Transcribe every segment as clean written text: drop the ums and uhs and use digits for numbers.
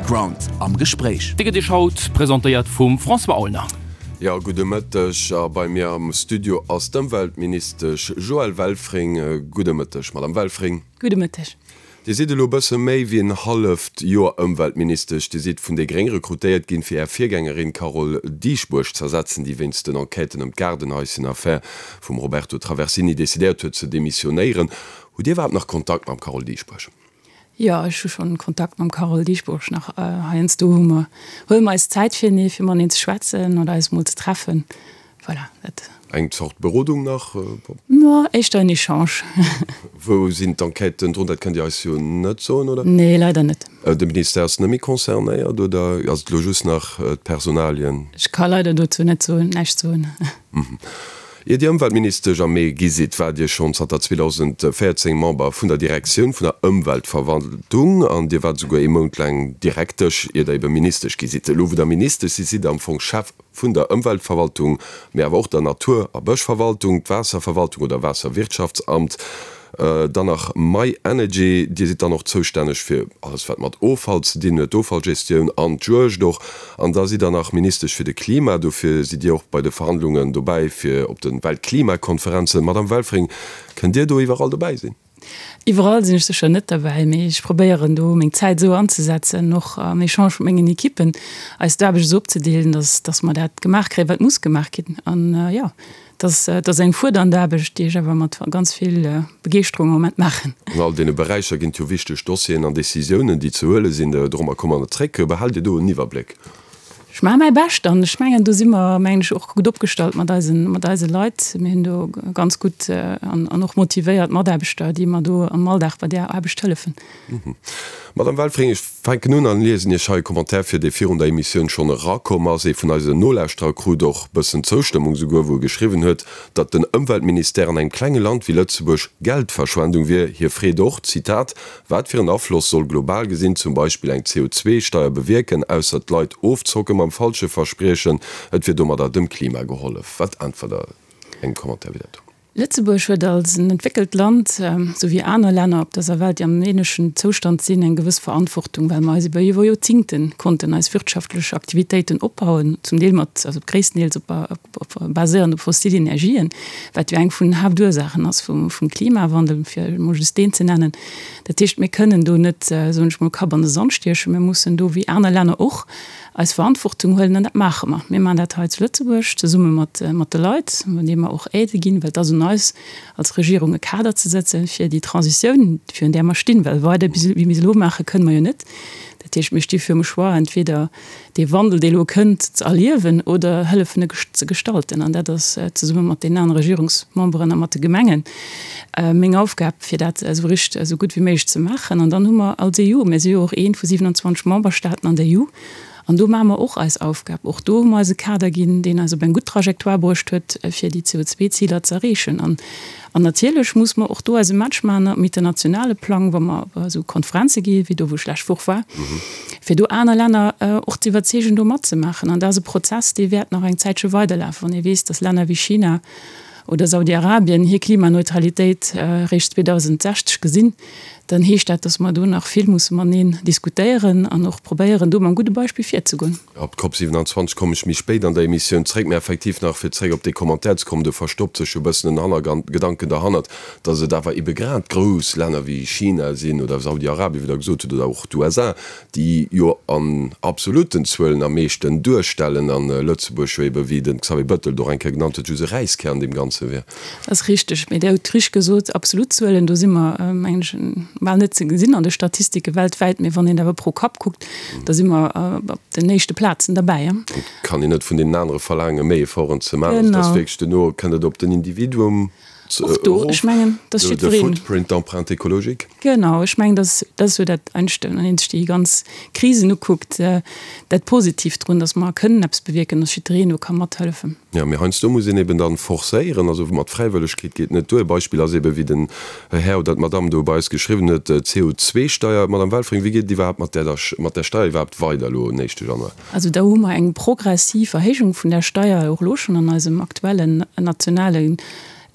Background am Gespréich. Dee gëtt Iech haut presentéiert vum François Aulner. Jo, gudde Mëtteg. A bei mir am Studio ass d'Ëmweltministesch Joëlle Welfring. Gudde Mëtteg, Madame Welfring. Gudde Mëtteg. Dir sidd elo e bësse méi wéi en halleft Joer Ëmweltministesch. Dir sidd vun déi Gréng rekrutéiert ginn, fir Är Virgängerin Carole Dieschbourg z'ersetzen, déi wéinst den Enquêten ëm d'Gaardenhaischen-Affär vum Roberto Traversini decidéiert huet ze demissionéieren. Hutt Dir iwwerhaapt nach Kontakt mam Carole Dieschbourg? Jo, ech hu schonn Kontakt mam Carole Dieschbourg nach. Heiansdo hu mer, huele mer eis Zäit firenee, fir mateneen ze schwätzen oder eis mol ze treffen. Voilà, dat. Eng Zort Berodung nach? No, éischter en Echange. Wou sinn d'Enquêten drun? Dat kënnt Dir eis jo net soen, oder? Nee, leider net. De Ministère ass net méi concernéiert, oder ass et elo just nach d'Personalien? Ech ka leider dozou net soen, näischt soen. Ier Dir Ëmweltministesch am Mee gi sidd, waart Dir schonn zanter 2014 Member vun der Direktioun vun der Ëmweltverwaltung an Dir waart esouguer ee Mount laang Direktesch, ier Der ebe Ministesch gi sidd. Elo wou Der Ministesch sidd, sidd Der am Fong Chef vun der Ëmweltverwaltung, mee awer och der Natur a Bëschverwaltung, d'Waasserverwaltung oder Waasserwirtschaftsamt, dann nach My Energy. Dir sidd dann och zoustänneg fir alles wat mat Offall ze dinn huet, d'Offallgestioun an d'Juegd och. An da sidd Der nach Ministesch fir de Klima, dofir sidd Dir och bei de Verhandlungen dobäi fir op de Weltklimakonferenzen. Madame Welfring, kënnt Dir do iwwerall dobäi sinn? Iwwerall sinn ech sécher net derbäi, mee ech probéieren do meng Zäit esou anzesetzen, och am Echange mat mengen Ekippen, eis d'Aarbecht esou opzedeelen, dass, dass mer dat gemaach kréien, wat muss gemaach ginn. An jo, dat ass eng fuerdernd Aarbecht, déi ech awer mat ganz vill Begeeschterung am Moment maachen. An all deene Beräicher ginn et jo wichteg Dossieren an Decisiounen, déi ze huele sinn. Dorommer komme mer zréck. Behaalt Dir do en Iwwerbléck? Ech maache mäi Bescht an ech mengen, do si mer, mengen ech, och gutt opgestallt mat eisen, mat eise Leit. Mir hunn do ganz gutt an an och motivéiert Mataarbechter, déi mer do am Alldag bei där Aarbecht hëllefen. Madame Welfring, ech fänken un an liesen Iech hei e Commentaire vir, dee virun der Emissioun schonn erakomm ass. Ee vun eisen Nolauschterer krut och bëssen Zoustëmmung souguer, wou e geschriwwen huet, datt den Ëmweltministère an engem klenge Land wéi Lëtzebuerg Geldverschwendung wier. Hie freet och, Zitat, Wat fir en Afloss soll global gesinn zum Beispill eng CO2-Steier bewierken, ausser d'Leit ofzocken mam falsche Verspriechen, et wier domadder dem Klima gehollef? Wat äntwert Der engem Commentaire wéi dat do? Lëtzebuerg huet als en entwéckelt Land, esou wéi aner Länner op dëser Welt, déi am ähnlechen Zoustand sinn, eng gewëss Verantwortung, well mer eis iwwer iwwer Joerzingte konnten eis wirtschaftlech Aktivitéiten opbauen, zum Deel mat, also gréisstendeels op, baséierend op fossil Energien, wat jo eng vun den Haaptursaachen ass vum Klimawandel, fir emol just deen ze nennen. Dat heescht, mir kënnen do net, soen ech mol, Kapp an de Sand stiechen. Mir mussen do, wéi aner Länner och, eis Verantwortung huelen an dat maache mer. Mir maachen dat hei zu Lëtzebuerg zesumme mat de Leit, deene mer och Aidë ginn, well et ass un eis als Regierung e Kader ze setzen, fir déi Transitioun, virun där mer stinn, well weider wéi mir se elo maachen, kënne mer jo net. Dat heescht, mir sti virum Choix, entweder dee Wandel, dee elo kënnt, ze erliewen oder hëllefen e ze gestalten. An dat ass zesumme mat deenen anere Regierungsmemberen a mat de Gemengen meng Aufgab, fir dat esou richt, esou gutt wéi méiglech ze maachen. An dann hu mer als EU, mir si jo och eent vu 27 Memberstaaten an der EU, an do maache mer och eis Aufgab. Och do hu mer eis e Kader ginn, deen eis op eng gutt Trajectoire bruecht huet, fir déi CO2-Ziler ze erreechen. An An natierlech muss mer och do eise Match maachen um internationale Plang, wa mer op esou Konferenze gi wéi do, wou ech lescht Woch war, fir do aner Länner och ze iwwerzeegen, do matzemaachen. An dat ass e Prozess, dee wäert nach eng Zäitche weiderlafen, wann ee weess, datt Länner wéi China oder Saudi-Arabien hir Klimaneutralitéit eréischt 2060 gesinn, dann heescht dat, datt mer do nach vill musse mateneen diskutéieren an och probéieren, do mam gudde Beispill virzegoen. Op d'Cop 27 kommen ech méi spéit an der Emissioun zréck, mä effektiv nach fir zréck op dee Commentaire ze kommen, do verstoppt sech jo e bëssen en Hannergedanken derhannert, datt et awer ebe grad grouss Länner wéi China sinn oder Saudi-Arabien, wéi Der gesot hutt, oder och d'USA, déi jo an absolutten Zuelen am meeschten duerstellen, an Lëtzebuerg jo ebe, wéi de Xavier Bettel et och eng Kéier genannt huet, just e Räiskär an deem Ganze wier. Dat ass richteg, mee Dir hutt richteg gesot, absolut Zuelen, do si mer, mengen ech, bal net ze gesinn an de Statistike weltwäit, mee wann een awer pro Kapp kuckt, da si mer op den éischte Plazen derbäi. Et kann een net vun deenen anere verlaangen, méi Efforten ze maachen. Also, et ass wierklech duerno kënnt et op den Individuum Och do, ech mengen, dass jiddwereen. De Footprint, d'Empreinte écologique. Genau, ech mengen, dass dat ass jo dat Einschte, wann ee sech déi ganz Krisen ukuckt, dat Positiivt drun, dass mer kënnen eppes bewierken, dass jiddwereen do ka mathëllefen. Jo, mee heiansdo muss een eben dann forcéieren, also mat Fräiwëllegkeet geet net duer. E Beispill ass eben, wéi den Här oder d'Madame do bei eis geschriwwen huet, d'CO2-Steier. Madame Welfring, wéi geet et iwwerhaapt mat där, mat där Steier iwwerhaapt weider elo en éischte Januar? Also do hu mer eng progressiv Erhéijung vun där Steier och elo schonn an eisem aktuellen nationale.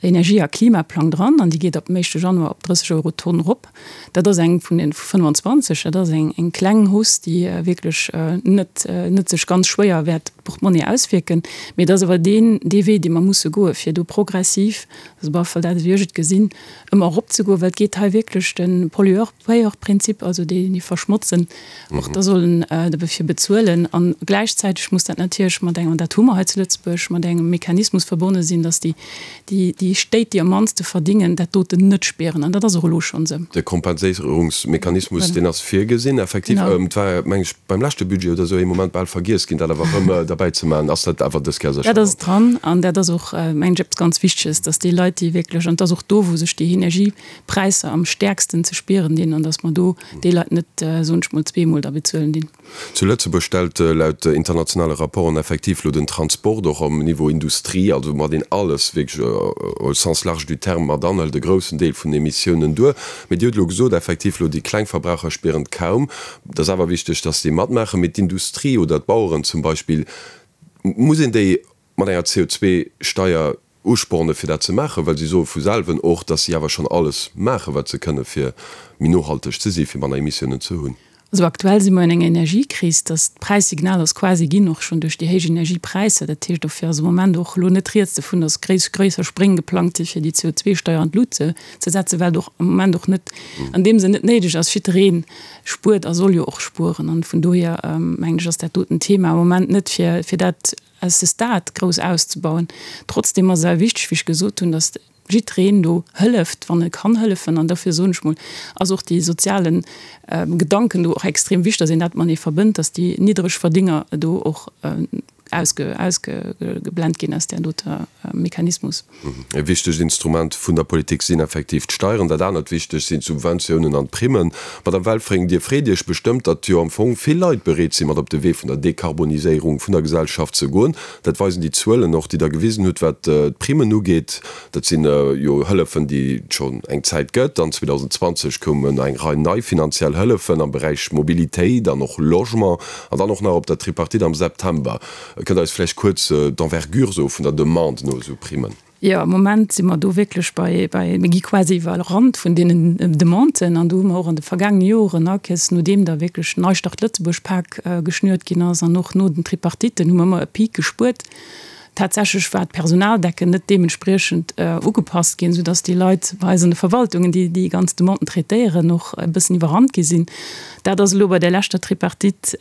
Energie a Klimaplang dran an déi geet ab dem éischte Januar op 30 Euro d'Tonn erop. Dat ass eng vun den 25, dat ass eng eng kleng Hausse, déi wierklech net net sech ganz schwéier wäert op d'Portmonnaie auswierken. Mee et ass awer deen dee Wee, dee mer musse goen, fir do progressiv, also op alle Fall dat, wéi ech et gesinn, ëmmer eropzegoen, well et geet hei wierklech de Pollueur-Payeur-Prinzip, also déi, déi verschmotzen, och da sollen dofir bezuelen. A gläichzäiteg muss dat natierlech mat engem, an dat hu mer hei zu Lëtzebuerg, mat engem Mechanismus verbonne sinn, dass déi, déi, déi Stéit, déi am mannste verdingen, dat doten net spieren. An dat ass och elo schonn esou. De Kompenséierungsmechanismus, deen ass virgesinn, effektiv. Et war, meng ech, beim leschte Budget oder esou ee Moment bal vergiess ginn, dat awer erëm derbäi ze maachen. Ass dat awer dës Kéier sécher dran? Dat ass dran an dat ass och, mengen ech, eppes ganz Wichteges, dass déi Leit, déi wierklech, an et ass och do, wou sech déi Energiepräisser am stäerksten ze spieren dinn, an dass mer do déi Leit net, soen ech mol, zweemol da bezuelen dinn. Zu Lëtzebuerg stellt laut internationale Rapporten effektiv lo den Transport och am Niveau Industrie, also mat een alles wierklech au sens large du terme mat anhëlt, e groussen Deel vun den Emissiounen duer. Mee Dir hutt elo gesot, effektiv lo déi kleng Verbraucher spieren et kaum. Et ass awer wichteg, dass déi matmaachen. Mee d'Industrie oder d'Baueren zum Beispill, muss een déi mat enger CO2-Steier uspornen, fir dat ze maachen? Well si soe vu selwen och, dass si awer schonn alles maachen, wat se kënnen, fir méi nohalteg ze sinn, fir manner Emissiounen ze hunn. Also aktuell si mer an enger Energiekris, dass d'Präissignal ass quasi ginn, och schonn duerch déi héich Energiepräisser. Dat heescht, dofir ass am Moment och elo net rieds dovun, dass gréisser Spréng geplangt si fir déi CO2-Steier an d'Lut ze setzen, well et och am Moment och net an deem Sënn net néideg ass. Jidderee spuert a soll jo och spueren. An vun dohier mengen ech, ass dat doten Thema am Moment net fir fir dat à ce stade grouss auszebauen. Trotzdem ass et awer wichteg, wéi ech gesot hunn, datt jiddereen do hëlleft, wann e kann hëllefen. An dofir soen ech mol, ass och dee soziale Gedanken do och extrem wichteg, datt een dat matenee verbënnt, datt déi Niddregverdénger do och ausgeblent ginn aus där doter Mechanismus. E wichtegt Instrument vun der Politik sinn effektiv d'Steieren. Dat anert wichteg sinn d'Subventiounen an d'Primmen. Madame Welfring, Dir freet Iech bestëmmt, datt jo am Fong vill Leit bereet sinn, mat op de Wee vun der Dekarboniséierung vun der Gesellschaft ze goen. Dat weisen déi Zuelen och, déi Der gewisen hutt, wat d'Primmen ugeet. Dat sinn jo Hëllefen, déi et schonn eng Zäit gëtt. An 2020 koumen eng Rei nei finanziell Hëllefen am Beräich Mobilitéit an och Logement. An dann och nach op der Tripartite am September. Kënnt Der eis vläicht kuerz d'Envergure soe vun der Demande no esou Primmen? Jo, am Moment si mer do wierklech bei, bei, mir gi quasi iwwerrannt vun deenen Demanden. An do hu mer och an de vergaangene Joren, akes nodeem da wierklech Neustart Lëtzebuerg Pak geschnürt ginn ass an och no den Tripartiten, hu mer ëmmer e Peak gespuert. Tatsächlech war d'Personaldecken net deementspriechend ugepasst ginn, soudass déi Leit bei eis an de Verwaltungen, déi déi ganz Demanden traitéieren, och e bëssen iwwerrannt gi sinn. Dat ass elo bei der leschter Tripartite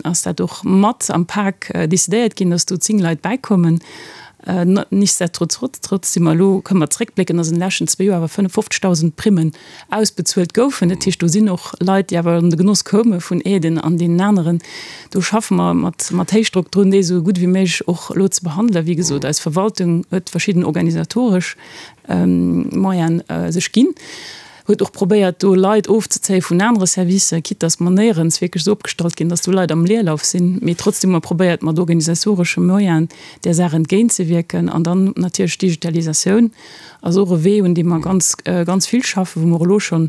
ass dat och mat am Pak decidéiert ginn, dass do 10 Leit bäikommen. Nichtsdestotrotz si mer elo, kënne mer zréckblécken, dass an de leschten zwee Joer awer 55.000 Primmen ausbezuelt goufen. Dat heescht, do sinn och Leit, déi awer an de Genoss koume vun Aiden an deenen aneren. Do schaffe mer mat, mat Héichdrock drun, déi esou gutt wéi méiglech och elo ze behandelen. Wéi gesot, eis Verwaltung huet verschidden organisatoresch Moyene sech ginn, huet och probéiert, do Leit ofzezéie vun anere Servicer, quitte dass mer néierens wierklech esou opgestallt ginn, dass do Leit am Leerlauf sinn. Mee trotzdem hu mer probéiert, mat organisatoresche Moyenen där Saach entgéintzewierken. An dann natierlech d'Digitalisatioun. Ass och e Wee, un deem mer ganz, ganz vill schaffen, wou mer och elo schonn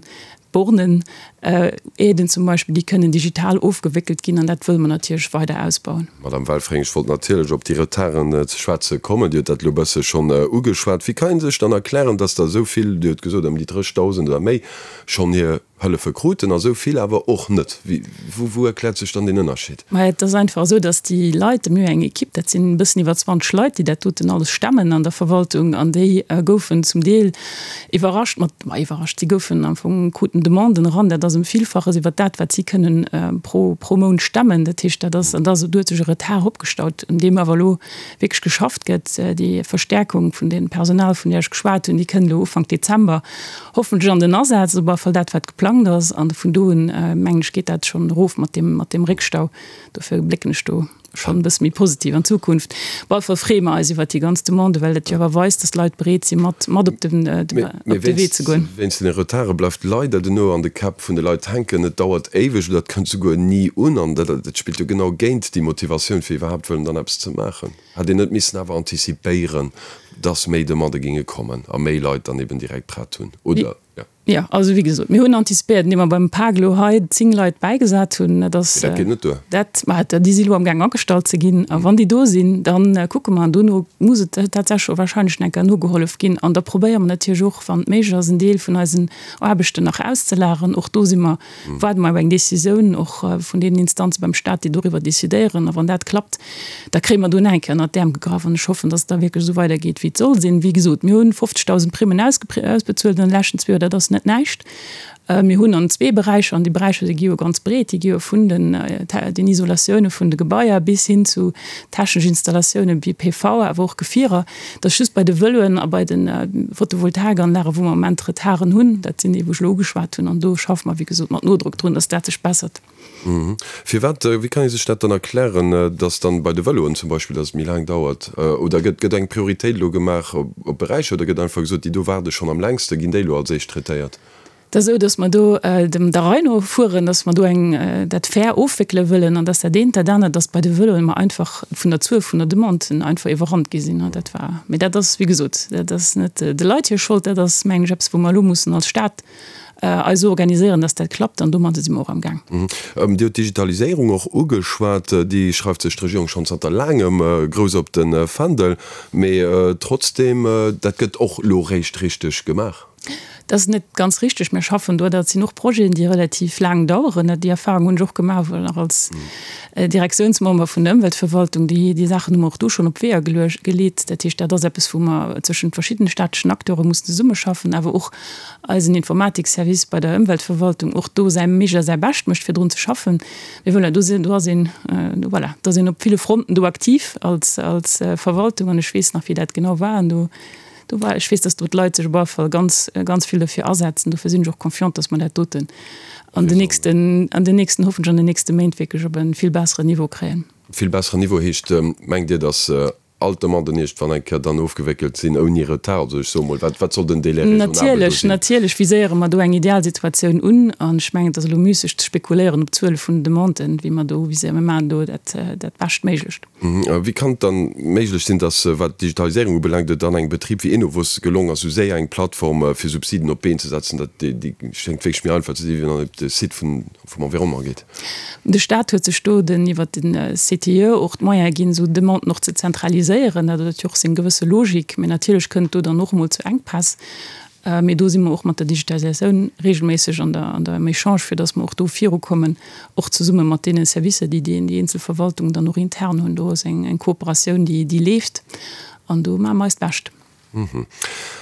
d'Bornen, Aiden zum Beispill, déi kënnen digital ofgewéckelt ginn, an dat wëlle mer natierlech weider ausbauen. Madame Welfring, ech wollt natierlech op déi Retarden ze schwätze kommen. Dir hutt dat elo e bësse schonn ugeschwat. Wéi kann ee sech dann erklären, dass der esou vill, Dir hutt gesot ëm déi 30.000 oder méi, schonn hir Hëllefe kruten a sou vill awer och net. Wou erkläert sech dann deen Ënnerscheed? Maja, et ass einfach esou, datt déi Leit, mir hu eng Ekipp, dat sinn e bëssen iwwer 20 Leit, déi dat doten alles stemmen an der Verwaltung, an déi goufen zum Deel iwwerrascht mat, ma iwwerrascht, si goufen am Fong, kruten Demanden eran, dat ass ëm Villfaches iwwer dat, wat si kënnen pro, pro Mount stemmen. Dat heescht, dat ass, an da ass, do huet sech e Retard opgestaut, un deem awer elo wierklech geschafft gëtt. Déi Verstärkung vun deem Personal, vun där ech geschwat hunn, déi kënnt elo Ufank Dezember. Hoffentlech an den Asaz, op alle Fall dat wat geplangt ass, an vun do un mengen ech geet dat schonn erof mat deem mat deem Réckstau. Dofir blécken ech do schonn e bësse méi positiv an d'Zukunft. Op alle Fall freeë mer eis iwwert déi ganz Demande, well dat jo awer weist, datt d'Leit bereet si mat mat op den op de Wee ze goen. Mee wéinst den Retarde bleift leider den Ouer an de Käpp vun de Leit hänken. Et dauert éiweg oder et kënnt souguer ni un an dat spillt jo genau géint déi Motivatioun fir iwwerhaapt wëllen dann eppes ze maachen. Hätt een net missen awer antizipéieren, dass méi Demandë géinge kommen a méi Leit dann eben direkt prett hunn, oder? Jo. Jo, also wéi gesot, mir hunn antizipéiert, indem mer beim PAG elo hei 10 Leit bäigesat hunn. Dat ass. Mee dat geet net duer. Dat, ma déi si elo amgaang agestallt ze ginn. A wann déi do sinn, da kucke mer. An dono muss et tatsächlech och wahrscheinlech nach eng Kéier nogehollef ginn. An da probéiere mer natierlech och, wann et méiglech ass, en Deel vun eisen Aarbechten nach auszelageren. Och do si mer, waarde mer op eng Décisioun och vun deenen Instanze beim Stat, déi doriwwer décidéieren. A wann dat klappt, Da kréie mer do nach eng Kéier ënnert d'Äerm gegraff an ech hoffen, dass et da wierklech esou weidergeet, wéi et soll sinn. Wéi gesot, mir hunn 50.000 Primmen ausbezuelt an de leschten zwee Joer, dat ass net näischt. Mir hunn an zwee Beräicher, an déi Beräicher, déi gi jo ganz breet, déi gi jo vun den den Isolatioune vun de Gebaier bis hin zu technesch Installatioune wéi PV, awer och Gefierer. Et ass just bei de Vëloen a bei de Photovoltaikanlagen, wou mer am Moment Retarden hunn. Dat sinn déi, wou ech elo ugeschwat hunn. An do schaffe mer, wéi gesot, mat Nodrock drun, dass dat sech bessert. Firwat, wéi kann ee sech dat dann erklären, datt dann bei de Vëloen zum Beispill, datt et méi laang dauert? Oder gëtt gëtt eng Prioritéit elo gemaach op Beräicher oder gëtt einfach gesot, déi do waarde schonn am längste, ginn déi elo als éischt traitéiert? Et ass esou, datt mer do dem der Rei no fueren, datt mer do eng dat fair ofwéckele wëllen an datt dat eent dat anert, datt bei de Vëloen mer einfach vun der Zuel vun der Demanden einfach iwwerrannt gi sinn. Dat war, mee dat ass wéi gesot, dat ass net de Leit hir Schold, dat ass mengen ech eppes wou mer elo mussen als Stat eis esou organiséieren, dass dat klappt, an domadde si mer och am Gaang. Dir hutt d'Digitaliséierung och ugeschwat. Déi schreift sech d'Regierung schonn zanter laangem grouss op de Fändel. Mee trotzdeem, dat gëtt och elo réischt richteg gemaach. Dat ass net ganz richteg. Mir schaffen do, dat sinn och Projeten, déi relativ laang daueren. Déi Erfahrung hunn ech och gemaach, wou nach als Direktiounsmember vun der Ëmweltverwaltung, déi déi Saachen hu mer och do schonn op d'Weeër geleet. Dat heescht, dat ass eppes, wou mer zwëschent verschiddene staatlechen Acteure mussen zesummeschaffen, awer och eisen Informatikservice bei der Ëmweltverwaltung och do säi Méigl a säi Bescht mécht, fir drun ze schaffen. Mee voilà, do sinn, do ass een, voilà, do ass een op ville Fronten do aktiv als, als Verwaltung an ech weess nach, wéi dat genau war an do, do war, ech weess, dass do d'Leit sech op alle Fall ganz, ganz vill dofir asetzen. Dofir sinn ech och confiant, dass mer dat doten an den nächsten, an den nächsten, hoffentlech an den nächste Méint wierklech op e vill besseren Niveau kréien. Vill besseren Niveau heescht, mengt Dir, dass all d'Demanden iergendwann eng Kéier dann ofgewéckelt sinn, ouni Retard? Also ech soe mol, wat, wat soll den Délai raisonnable do Natierlech, sinn? natierlech viséiere mer do eng Idealsituatioun un. An ech mengen, et ass elo müsseg ze spekuléieren op d'Zuele vun den Demanden, wéi mer do viséieren. Mir maachen do dat, dat Beschtméiglecht. Wéi kann et dann méiglech sinn, dass, wat d'Digitaliséierung ubelaangt, et an engem Betrib wéi Enovos gelong ass, esou séier eng Plattform fir Subsiden op d'Been ze setzen? Dat, déi, déi schéngt wierklech méi einfach ze sinn, wéi wann een op de Site vun vum Environnement geet. De Staat huet sech do den iwwert den CTIE och d'Moyene ginn, esou Demanden och ze zentraliséieren. Dat huet jo och seng gewësse Logik. Mee natierlech kënnt do dann och emol zu Enkpäss. Mee do si mer och mat der Digitalisatioun regelméisseg an der an der am Echange, fir datt mer och do virukommen, och zesumme mat deene Servicer, déi déi eenzel Verwaltungen dann och intern hunn. Do ass eng eng Kooperatioun, déi déi leeft an do maache mer eist Bescht.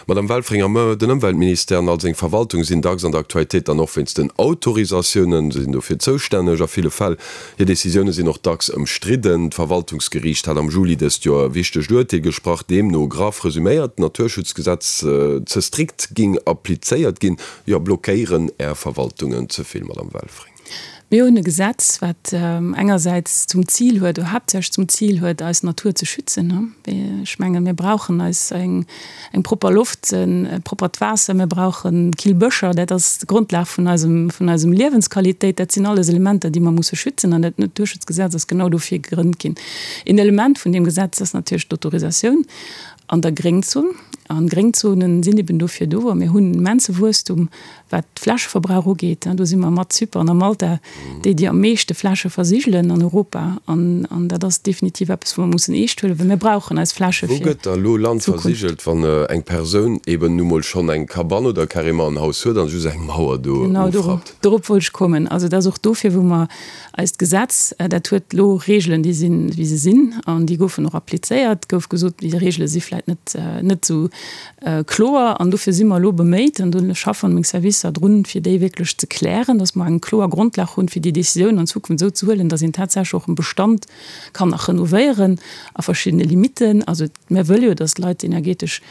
Madame Welfringer, Mme, den Ëmweltministère an all seng Verwaltung sinn dacks an der Aktualitéit dann och wéinst den Autorisatiounen. Se sinn dofir zoustänneg a ville Fäll. Hir Decisioune sinn och dacks ëmstridden. D'Verwaltungsgeriicht hat am Juli dëst Joer e wichtegt Urteel gesprach, deemno, graff resuméiert, d'Naturschutzgesetz ze strikt ging applizéiert ginn. Jo, blockéieren Är Verwaltungen ze vill, Madame Welfring? Mir hunn e Gesetz, wat engersäits zum Zil huet, oder haaptsächlech zum Zil huet, eis Natur ze schützen. Ech menge mir brauchen eis eng propper Loft, e proppert Waasser, mir brauche kill Bëscher. Dat ass d'Grondlag vun eisem, vun eisem Liewensqualitéit. Dat sinn alles Elementer, déi mer musse schützen. An dat Naturschutzgesetz ass genau dofir gegrënnt ginn. Een Element vun deem Gesetz ass natierlech d'Autorisatioun an der Gréngzon. An Gréngzonen sinn eben dofir do. A mir hunn immense Wuesstum Wat Flächeverbrauch ugeet, do si mer mat Zypern a Malta déi, déi am meeschte Fläche versigelen an Europa. An dat ass definitiv eppes, wou mer mussen eescht huelen, well mir brauchen eis Fläche fir d'Zukunft. Wou gëtt da elo Land versigelt, wann eng Persoun eben nu mol schonn eng Cabane oder carrément en Haus huet an just eng Mauer do ofrappt? Genau, dorop wollt ech kommen. Also et ass och dofir, wou mer eist Gesetz, dat huet elo Regeln, déi sinn, wéi se sinn, an déi goufen och applizéiert. Et gouf gesot, déi Regele si vläicht net, net esou Kloer, an dofir si mer elo beméit, an do schaffen meng Servicer drun, fir déi wierklech ze klären, dass mer eng kloer Grondlag hunn, fir déi Décisioun an Zukunft esou ze huelen, dass een tatsächlech och e Bestand kann nach renovéieren a verschiddene Limiten. Also mir wëlle jo, dass d'Leit energetesch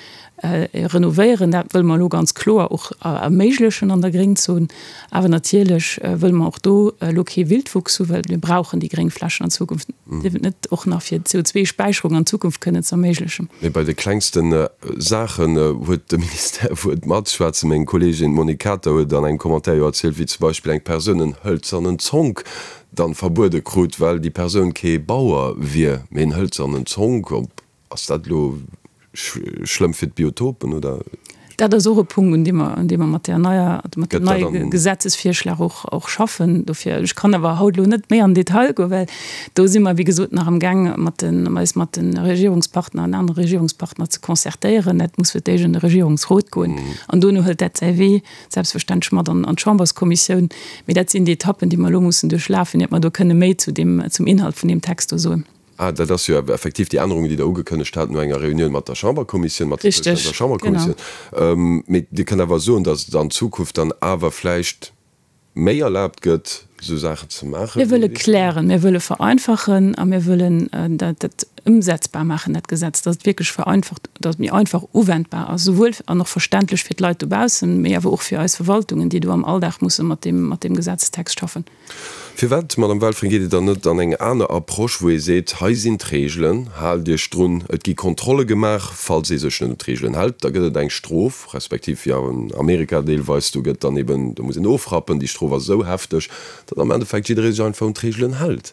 renovéieren. Dat wëlle mer elo ganz kloer och erméiglechen an der Gréngzon. Awer natierlech wëlle mer och do elo kee Wildwuchs hu, well mir brauchen déi gréng Flächen an Zukunft net och nach fir d'CO2-Späicherung an Zukunft kënnen ze erméiglechen. Mee bei de klengste Saachen huet de Ministère Wuert matzeschwätzen. Meng Kolleegin d'Monique Kater huet an engem Commentaire jo erzielt, wéi zum Beispill eng Persoun en hëlzernen Zonk dann verbuede krut, well déi Persoun kee Bauer wier, mee en hëlzernen Zonk, ob Ass dat elo schlëmm fir d'Biotopen oder? Dat ass och e Punkt, un deem mer, un deem mer mat där neier, mat deem neie Gesetzesvirschlag och, och schaffen. Dofir, ech kann awer haut elo net méi an den Detail goen, well do si mer, wéi gesot, nach amgaang mat den, eis mat de Regierungspartner an anere Regierungspartner ze concertéieren. Dat muss fir d'éischt an de Regierungsrot goen an dono hëlt dat säi Wee selbstverständlech mat an d'Chamberskommissioun. Mee dat sinn déi Etappen, déi mer elo mussen duerchlafen, iert mer do kënne méi zu deem, zum Inhalt vun deem Text do soen. Ah, dat ass jo effektiv déi Ännerungen, déi Der ugekënnegt hat no enger Reunioun mat der Chamberkommissioun, mat der zoustänneder Chamberkommissioun. Mee Dir kënnt awer soen, datt et an Zukunft dann awer vläicht méi erlaabt gëtt, esou Saachen ze maachen? Mir wëlle klären, mir wëlle vereinfachen a mir wëllen dat ëmsetzbar maachen, dat Gesetz, datt et wierklech vereinfacht, datt et méi einfach uwendbar ass, souwuel an och verständlech fir d'Leit dobaussen, mee awer och fir eis Verwaltungen, déi do am Alldag musse mat deem, mat deem Gesetzestext schaffen. Firwat, Madame Welfring, geet Dir dann net an eng aner Approche, wou ee seet, hei sinn d'Regelen, haalt Iech drun, et gi Kontrolle gemaach, falls ee sech net un d'Regelen hält, da gëtt et eng Strof, respektiv wéi an Amerika deelweis, do gëtt dann eben, do muss een ofrappen, déi Strof ass esou hefteg, datt am Endeffekt jidderee sech einfach un d'Regelen hält.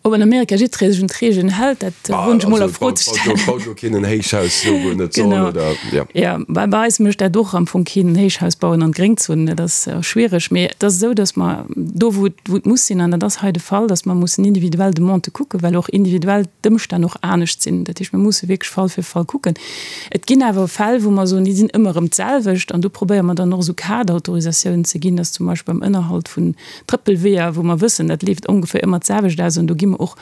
Ob an Amerika jiddweree sech un d'Regeln hält, dat woen ech emol a Fro ze stellen. Baut elo keen en Héichhaus do, wou en net soll, oder? Jo. Jo, bei eis mécht dat och am Fong keen, en Héichhaus bauen an d'Gréngzon, dat ass schwiereg. Mee et ass esou, datt mer do, wou et, wou et muss sinn, an dat ass hei de Fall, datt mer mussen individuell Demandë kucken, well och individuell d'Ëmstänn och anescht sinn. Dat heescht, mir musse wierklech Fall fir Fall kucken. Et ginn awer Fäll, wou mer soen, déi sinn ëmmer erëm d'selwecht, an do probéiere mer dann och esou Kaderautorisatiounen ze ginn, datt zum Beispill beim Ënnerhalt vun Trëppelweeër, wou mer wëssen, dat leeft ongeféier ëmmer d'selwecht aus an do gi mer och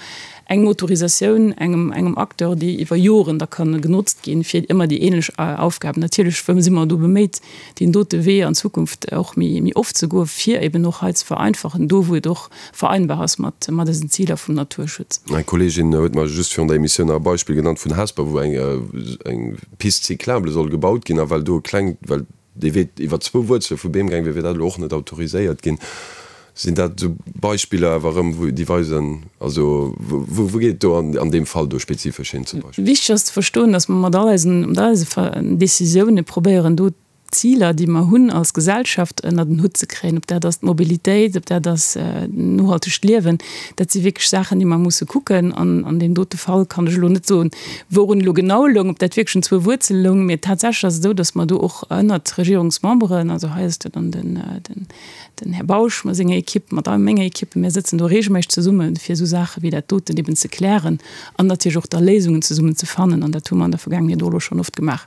eng Autorisatioun engem, engem Acteur, déi iwwer Joren da ka genotzt ginn, fir ëmmer déi ähnlech Aufgaben. Natierlech si mer do beméit, deen dote Wee an Zukunft och méi, méi oft ze goen, fir eben och hei ze vereinfachen, do wou et och vereinbar ass mat, mat eisen Ziler vum Naturschutz. Eng Kolleegin huet mer just virun der Emissioun nach e Beispill genannt vun Hesper, wou eng, eng Piste cyclable soll gebaut ginn a well do e klengt, well dee Wee iwwer zwou Wuerzele vu Beem gaang wier, wier dat elo och net autoriséiert ginn. Sinn dat esou Beispiller awer erëm, wou déi weisen, also wou geet et do an deem Fall do spezifesch hin zum Beispill? Wichteg ass ze verstoen, datt mer mat all eisen, mat all eise Décisioune probéieren do d'Ziler, déi mer hunn als Gesellschaft, ënnert en Hutt ze kréien. Ob dat ass d'Mobilitéit, ob dat ass nohaltegt Liewen, dat si wierklech Saachen, déi mer musse kucken. An an deem dote Fall kann ech elo net soen, Wourun elo genau loung, ob dat wierklech un zwou Wuerzele loung, mee tatsächlech ass et esou, datt mer do och ënnert Regierungsmemberen, also hei ass et jo dann den Här Bausch mat senger Equipe, mat menger Equipe, mir sëtzen do regelméisseg zesumme fir esou Saache wéi dat doten eben ze klären an natierlech och da Léisungen zesummen ze fannen an dat hu mer an der Vergaangenheet och elo schonn oft gemaach.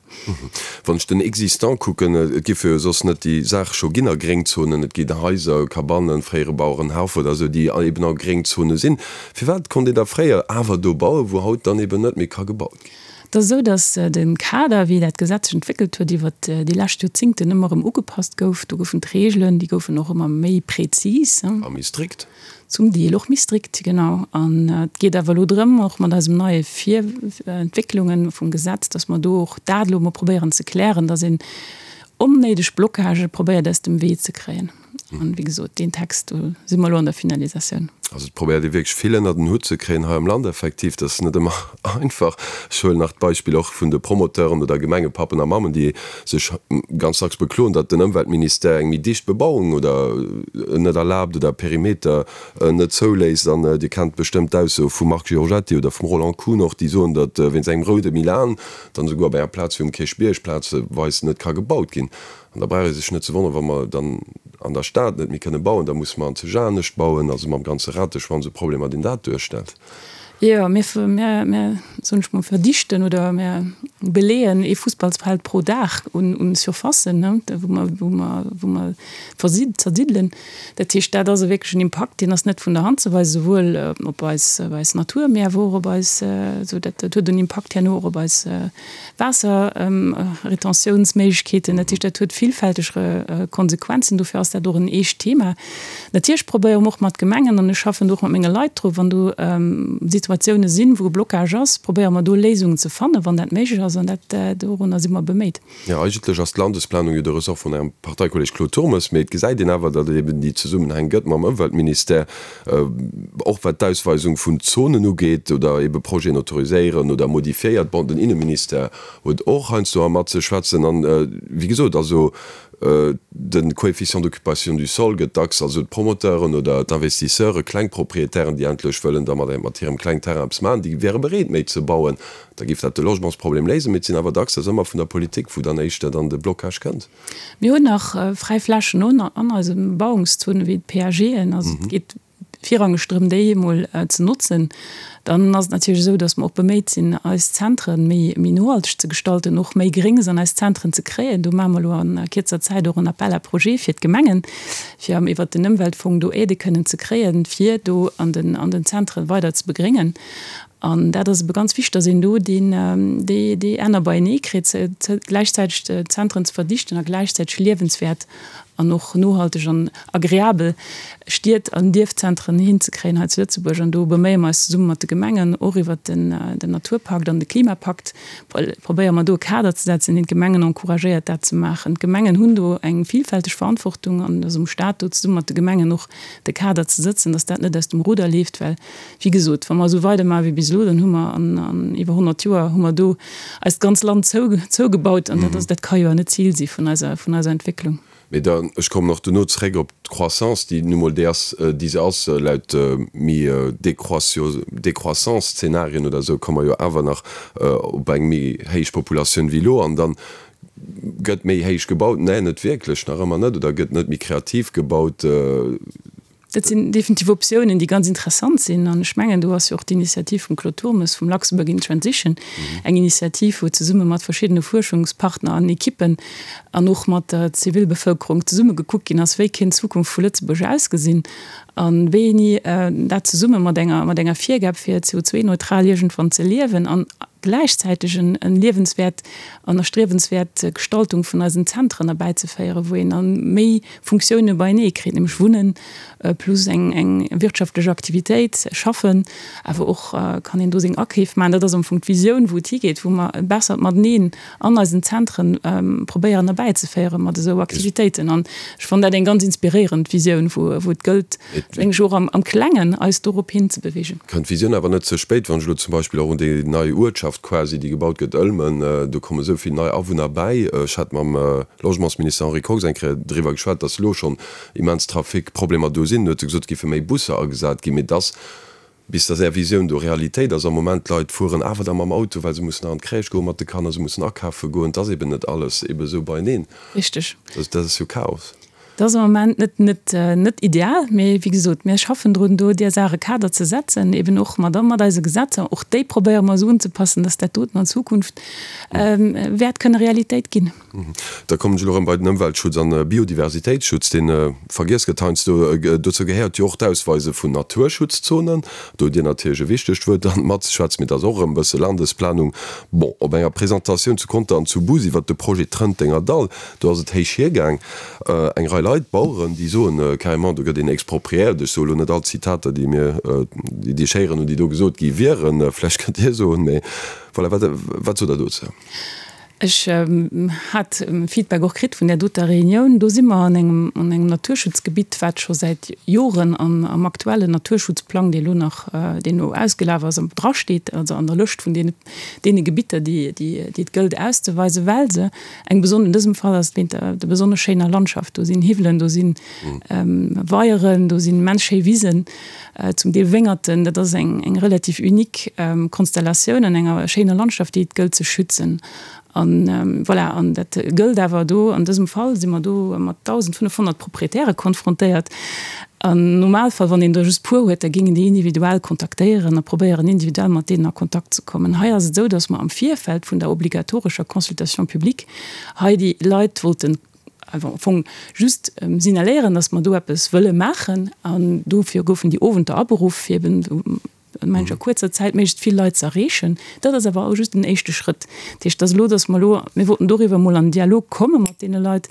Wann ech den Existant kucken, et géife jo soss net déi Saache scho ginn a Gréngzonen, et ginn Haiser, Cabannen, fréiere Bauerenhauf oder esou, déi eben a Gréngzone sinn. Firwat konnt een da fréier awer do bauen, wou haut dann eben net méi ka gebaut ginn? Et ass esou, datt de Kader, wéi dat Gesetz sech entwéckelt huet iwwert déi lescht Joerzingten, ëmmer erëm ugepasst gouf. Do goufen d'Reegelen, déi goufen och ëmmer méi prezis. A méi strikt. Zum Deel och méi strikt, genau. An et geet awer elo drëm, och mat eisem neie Vir Entwécklunge vum Gesetz, datt mer do och dat elo emol probéieren ze klären, datt een onnéideg Blocagë probéiert aus dem Wee ze kréien. An, wéi gesot, deen Text, do si mer elo an der Finalisatioun. Also et probéiert ee wierklech vill ënnert en Hutt ze kréien hei am Land effektiv. Dat ass net ëmmer einfach. Ech huelen nach d'Beispill och vun de Promoteuren oder Gemengepappen a mammen, déi sech ganz dacks bekloen, datt den Ëmweltministère eng méi dicht Bebauung oder net erlaabt oder Perimeter net zouléisst. An Dir kennt bestëmmt d'Ausso vum Marc Giorgetti oder vum Roland Kuhn och, déi soen, datt wéinst engem roude Milan dann esouguer op enger Plaz wéi um Kierchbierg plazeweis net ka gebaut ginn. An da brauch ee sech net ze wonneren, wa mer dann an der Stad net méi kënne bauen, da musse mer an zeg anescht bauen, also mam ganze Rateschwanz u Problemer, deen dat duerstellt. Jo, mir, mir, mir, soen ech mol, verdichten oder mir beleeën ee Fussballsfeld pro Dag un, un Surfacen, ne, wou mer, wou mer, wou mer versi-, zersiddelen. Dat heescht, dat ass e wierklechen Impakt, deen ass net vun der Hand ze weisen, souwuel op eis, op eis Natur, mee awer och op eis, esou dat, dat huet en Impakt herno och op eis, Waasserretentiounsméiglechkeeten. Dat heescht, dat huet villfälteg Konsequenzen. Dofir ass dat och en eescht Thema. Natierlech probéiere mer och mat Gemengen, an ech schaffen do och mat menge Leit dru, wann do Situatioune sinn, wou e Blocage ass, probéiere mer do Léisungen ze fannen, wann dat méiglech ass. An dat, dorunner si mer beméit. Jo, eigentlech ass d'Landesplanung jo de Ressort vun Ärem Parteikolleg Claude Turmes, mee et gesäit een awer, datt et eben déi Zesummenhäng gëtt mam Ëmweltministère, och wat d'Ausweisung vun Zonen ugeet oder ebe Projeten autoriséieren oder modifiéiert. Bon, den Inneministère huet och heiansdo mat ze schwätzen an, wéi gesot, also. De Coefficient d'occupation du sol gëtt dacks, also d'Promoteuren oder d'Investisseure, kleng Proprietären, déi endlech wëllen da mat hirem klengen Terrain eppes maachen, déi wäre bereet méi ze bauen, da géif dat de Logementsproblem léisen. Mee et sinn awer dacks, dat ass ëmmer vun der Politik, wou dann éischter dann de Blocage kënnt. Mir hunn nach fräi Flächen an eise Bebauungszonen, wéi d'PAGen. Also et geet virrangeg drëm, déi emol ze notzen. Dann ass et natierlech esou, datt mer och beméit sinn, eis Zentren méi, méi nohalteg ze gestalten, och méi Gréngs an eis Zentren ze kréien. Do maache mer elo a kierzer Zäit och en Appel à projets fir d'Gemengen, fir iwwert den Ëmweltfong do Aidë kënnen ze kréien, fir do an den, an den Zentren weider ze begréngen. An dat ass ebe ganz wichteg, datt een do deen, déi, déi Enner beienee kritt, gläichzäiteg d'Zentren ze verdichten a gläichzäiteg liewenswäert an och nohalteg an agreabel Stied an Dierfzentren hinzekréien hei zu Lëtzebuerg. An do beméie mer eis zesumme mat de Gemengen, och iwwert den Naturpakt an de Klimapakt, probéiere mer do e Kader ze setzen, deen d'Gemengen encouragéiert, dat ze maachen. D'Gemengen hunn do eng vielfälteg Verantwortung an et ass um Stat, do zesumme mat de Gemengen och de Kader ze sëtzen, dass dat net aus dem Ruder leeft, well Wéi gesot, wa mer esou weidermaache wéi bis elo, dann hu mer an iwwer 100 Joer hu mer do eist ganz Land zougebaut. An dat ass, dat ka jo awer net d'Zil si vun eiser, vun eiser Entwécklung. Mee dann, ech kommen och duerno zréck op d'Croissance, déi nu mol déi ass, déi se ass. Laut méi Décroissance-Zeenarien oder esou komme mer jo awer nach op eng méi héich Populatioun wéi elo. An dann gëtt méi héich gebaut. Nee, net wierklech, nach ëmmer net. Oder gëtt net méi kreativ gebaut. Dat sinn definitiv Optiounen, déi ganz interessant sinn. An ech mengen, do ass jo och d'Initiativ vum Claude Turmes vum Luxembourg in Transition eng Initiativ, wou zesumme mat verschiddene Fuerschungspartner an Ekippen an och mat der Zivilbevëlkerung zesumme gekuckt ginn ass, wéi kéint d'Zukunft vu Lëtzebuerg ausgesinn a wéini dat zesumme mat enger, mat enger Virgab fir CO2-neutral iergendwann ze liewen an gläichzäiteg en liewenswäert an erstriewenswäert Gestaltung vun eisen Zentren erbäizeféieren, wou een da méi Funktioune beienee kritt, nämlech Wunnen plus eng eng wirtschaftlech Aktivitéit, schaffen, awer och kann een do seng Akeef maachen. Dat ass am Fong d'Visioun, wou et higeet, wou mer e bessert Mateneen an eisen Zentren probéieren erbäizeféieren mat esou Aktivitéiten. An ech fannen dat eng ganz inspiréierend Visioun, wou wou et gëllt, meng ech, och am am Klengen eis dorop hinzebewegen. Kënnt d'Visioun awer net ze spéit, wann ech elo zum Beispill och un déi nei Uertschaft quasi, déi gebaut gëtt, Ëlmen, do komme esou vill nei Awunner bäi. Ech hat mam Logementsminister Henri Kox eng Kéier driwwer geschwat, dass elo schonn immens Trafic-Problemer do sinn. En huet gesot, et géife méi Busser agesat ginn, mee dass, bis dass Är Visioun do Realitéit ass, am Moment d'Leit fueren awer da mam Auto, well se mussen nach an d'Crèche goen mat de Kanner, se mussen akafe goen. Et ass eben net alles ebe esou beieneen. Richteg. Dat ass jo Chaos. Dat ass am Moment net, net, net ideal, mee wéi gesot, mir schaffen drun, do där Saach e Kader ze setzen, eben och mat, mat eise Gesetzer. Och déi probéiere mer esou unzepassen, dass dat doten an Zukunft wäert kënne Realitéit ginn. Da kommen ech elo erëm bei den Ëmweltschutz an Biodiversitéitsschutz, dee vergiess gëtt heiansdo. Dozou gehéiert jo och d'Ausweise vun Naturschutzzonen. Do hutt Dir natierlech e wichtegt Wuert dann matzeschwätzen, mee dat ass och erëm e bësse Landesplanung. Bon, op enger Presentatioun zu Conter an zu Bus iwwert de Projet Trëntenger Dall, do ass et héich hiergaang. Eng Rei Leit, Baueren, déi soen carrément, do gëtt een expropriéiert. Ech soe lo net all d'Zitater, déi mir, déi ech héieren hunn, déi do gesot gi wieren. Vläicht kënnt Dir soen, mee voilà, wat, wat sot Der dozou? Ech hat Feedback och kritt vun där doter Reunioun. Do si mer an engem, an engem Naturschutzgebitt, wat scho säit Joren an am aktuellen Naturschutzplang, dee lo nach, deen elo ausgelaf ass, drasteet, also an der Lëscht vun deene, deene Gebitter, déi, déi, déi et gëllt auszeweisen, well se eng beson, an dësem Fall ass et wéint der, der besonnesch schéiner Landschaft. Do sinn Hiwwelen, do si Weieren, do sinn immens schéi Wisen, zum Deel Wéngerten. Dat ass eng, eng relativ unique Konstellatioun an enger schéiner Landschaft, déi et gëllt ze schützen. An voilà, an dat gëllt awer do, an dësem Fall si mer do mat 1.500 Proprietäre konfrontéiert. Am Normalfall, wann een der just puer huet, da géingen déi individuell kontaktéieren a probéieren individuell mat deenen a Kontakt ze kommen. Hei ass et esou, datt mer am Virfeld vun der obligatorescher Consultation publique hei déi Leit wollten am Fong just signaléieren, datt mer do eppes wëlle maachen. An dofir goufen déi Owenter aberuff, fir eben mengen ech, a kuerzer Zäit méiglechst vill Leit ze erreechen. Dat ass awer just den éischte Schrëtt. Dat heescht, dass elo, dass mer elo, mir wollten doriwwer emol an den Dialog komme mat deene Leit,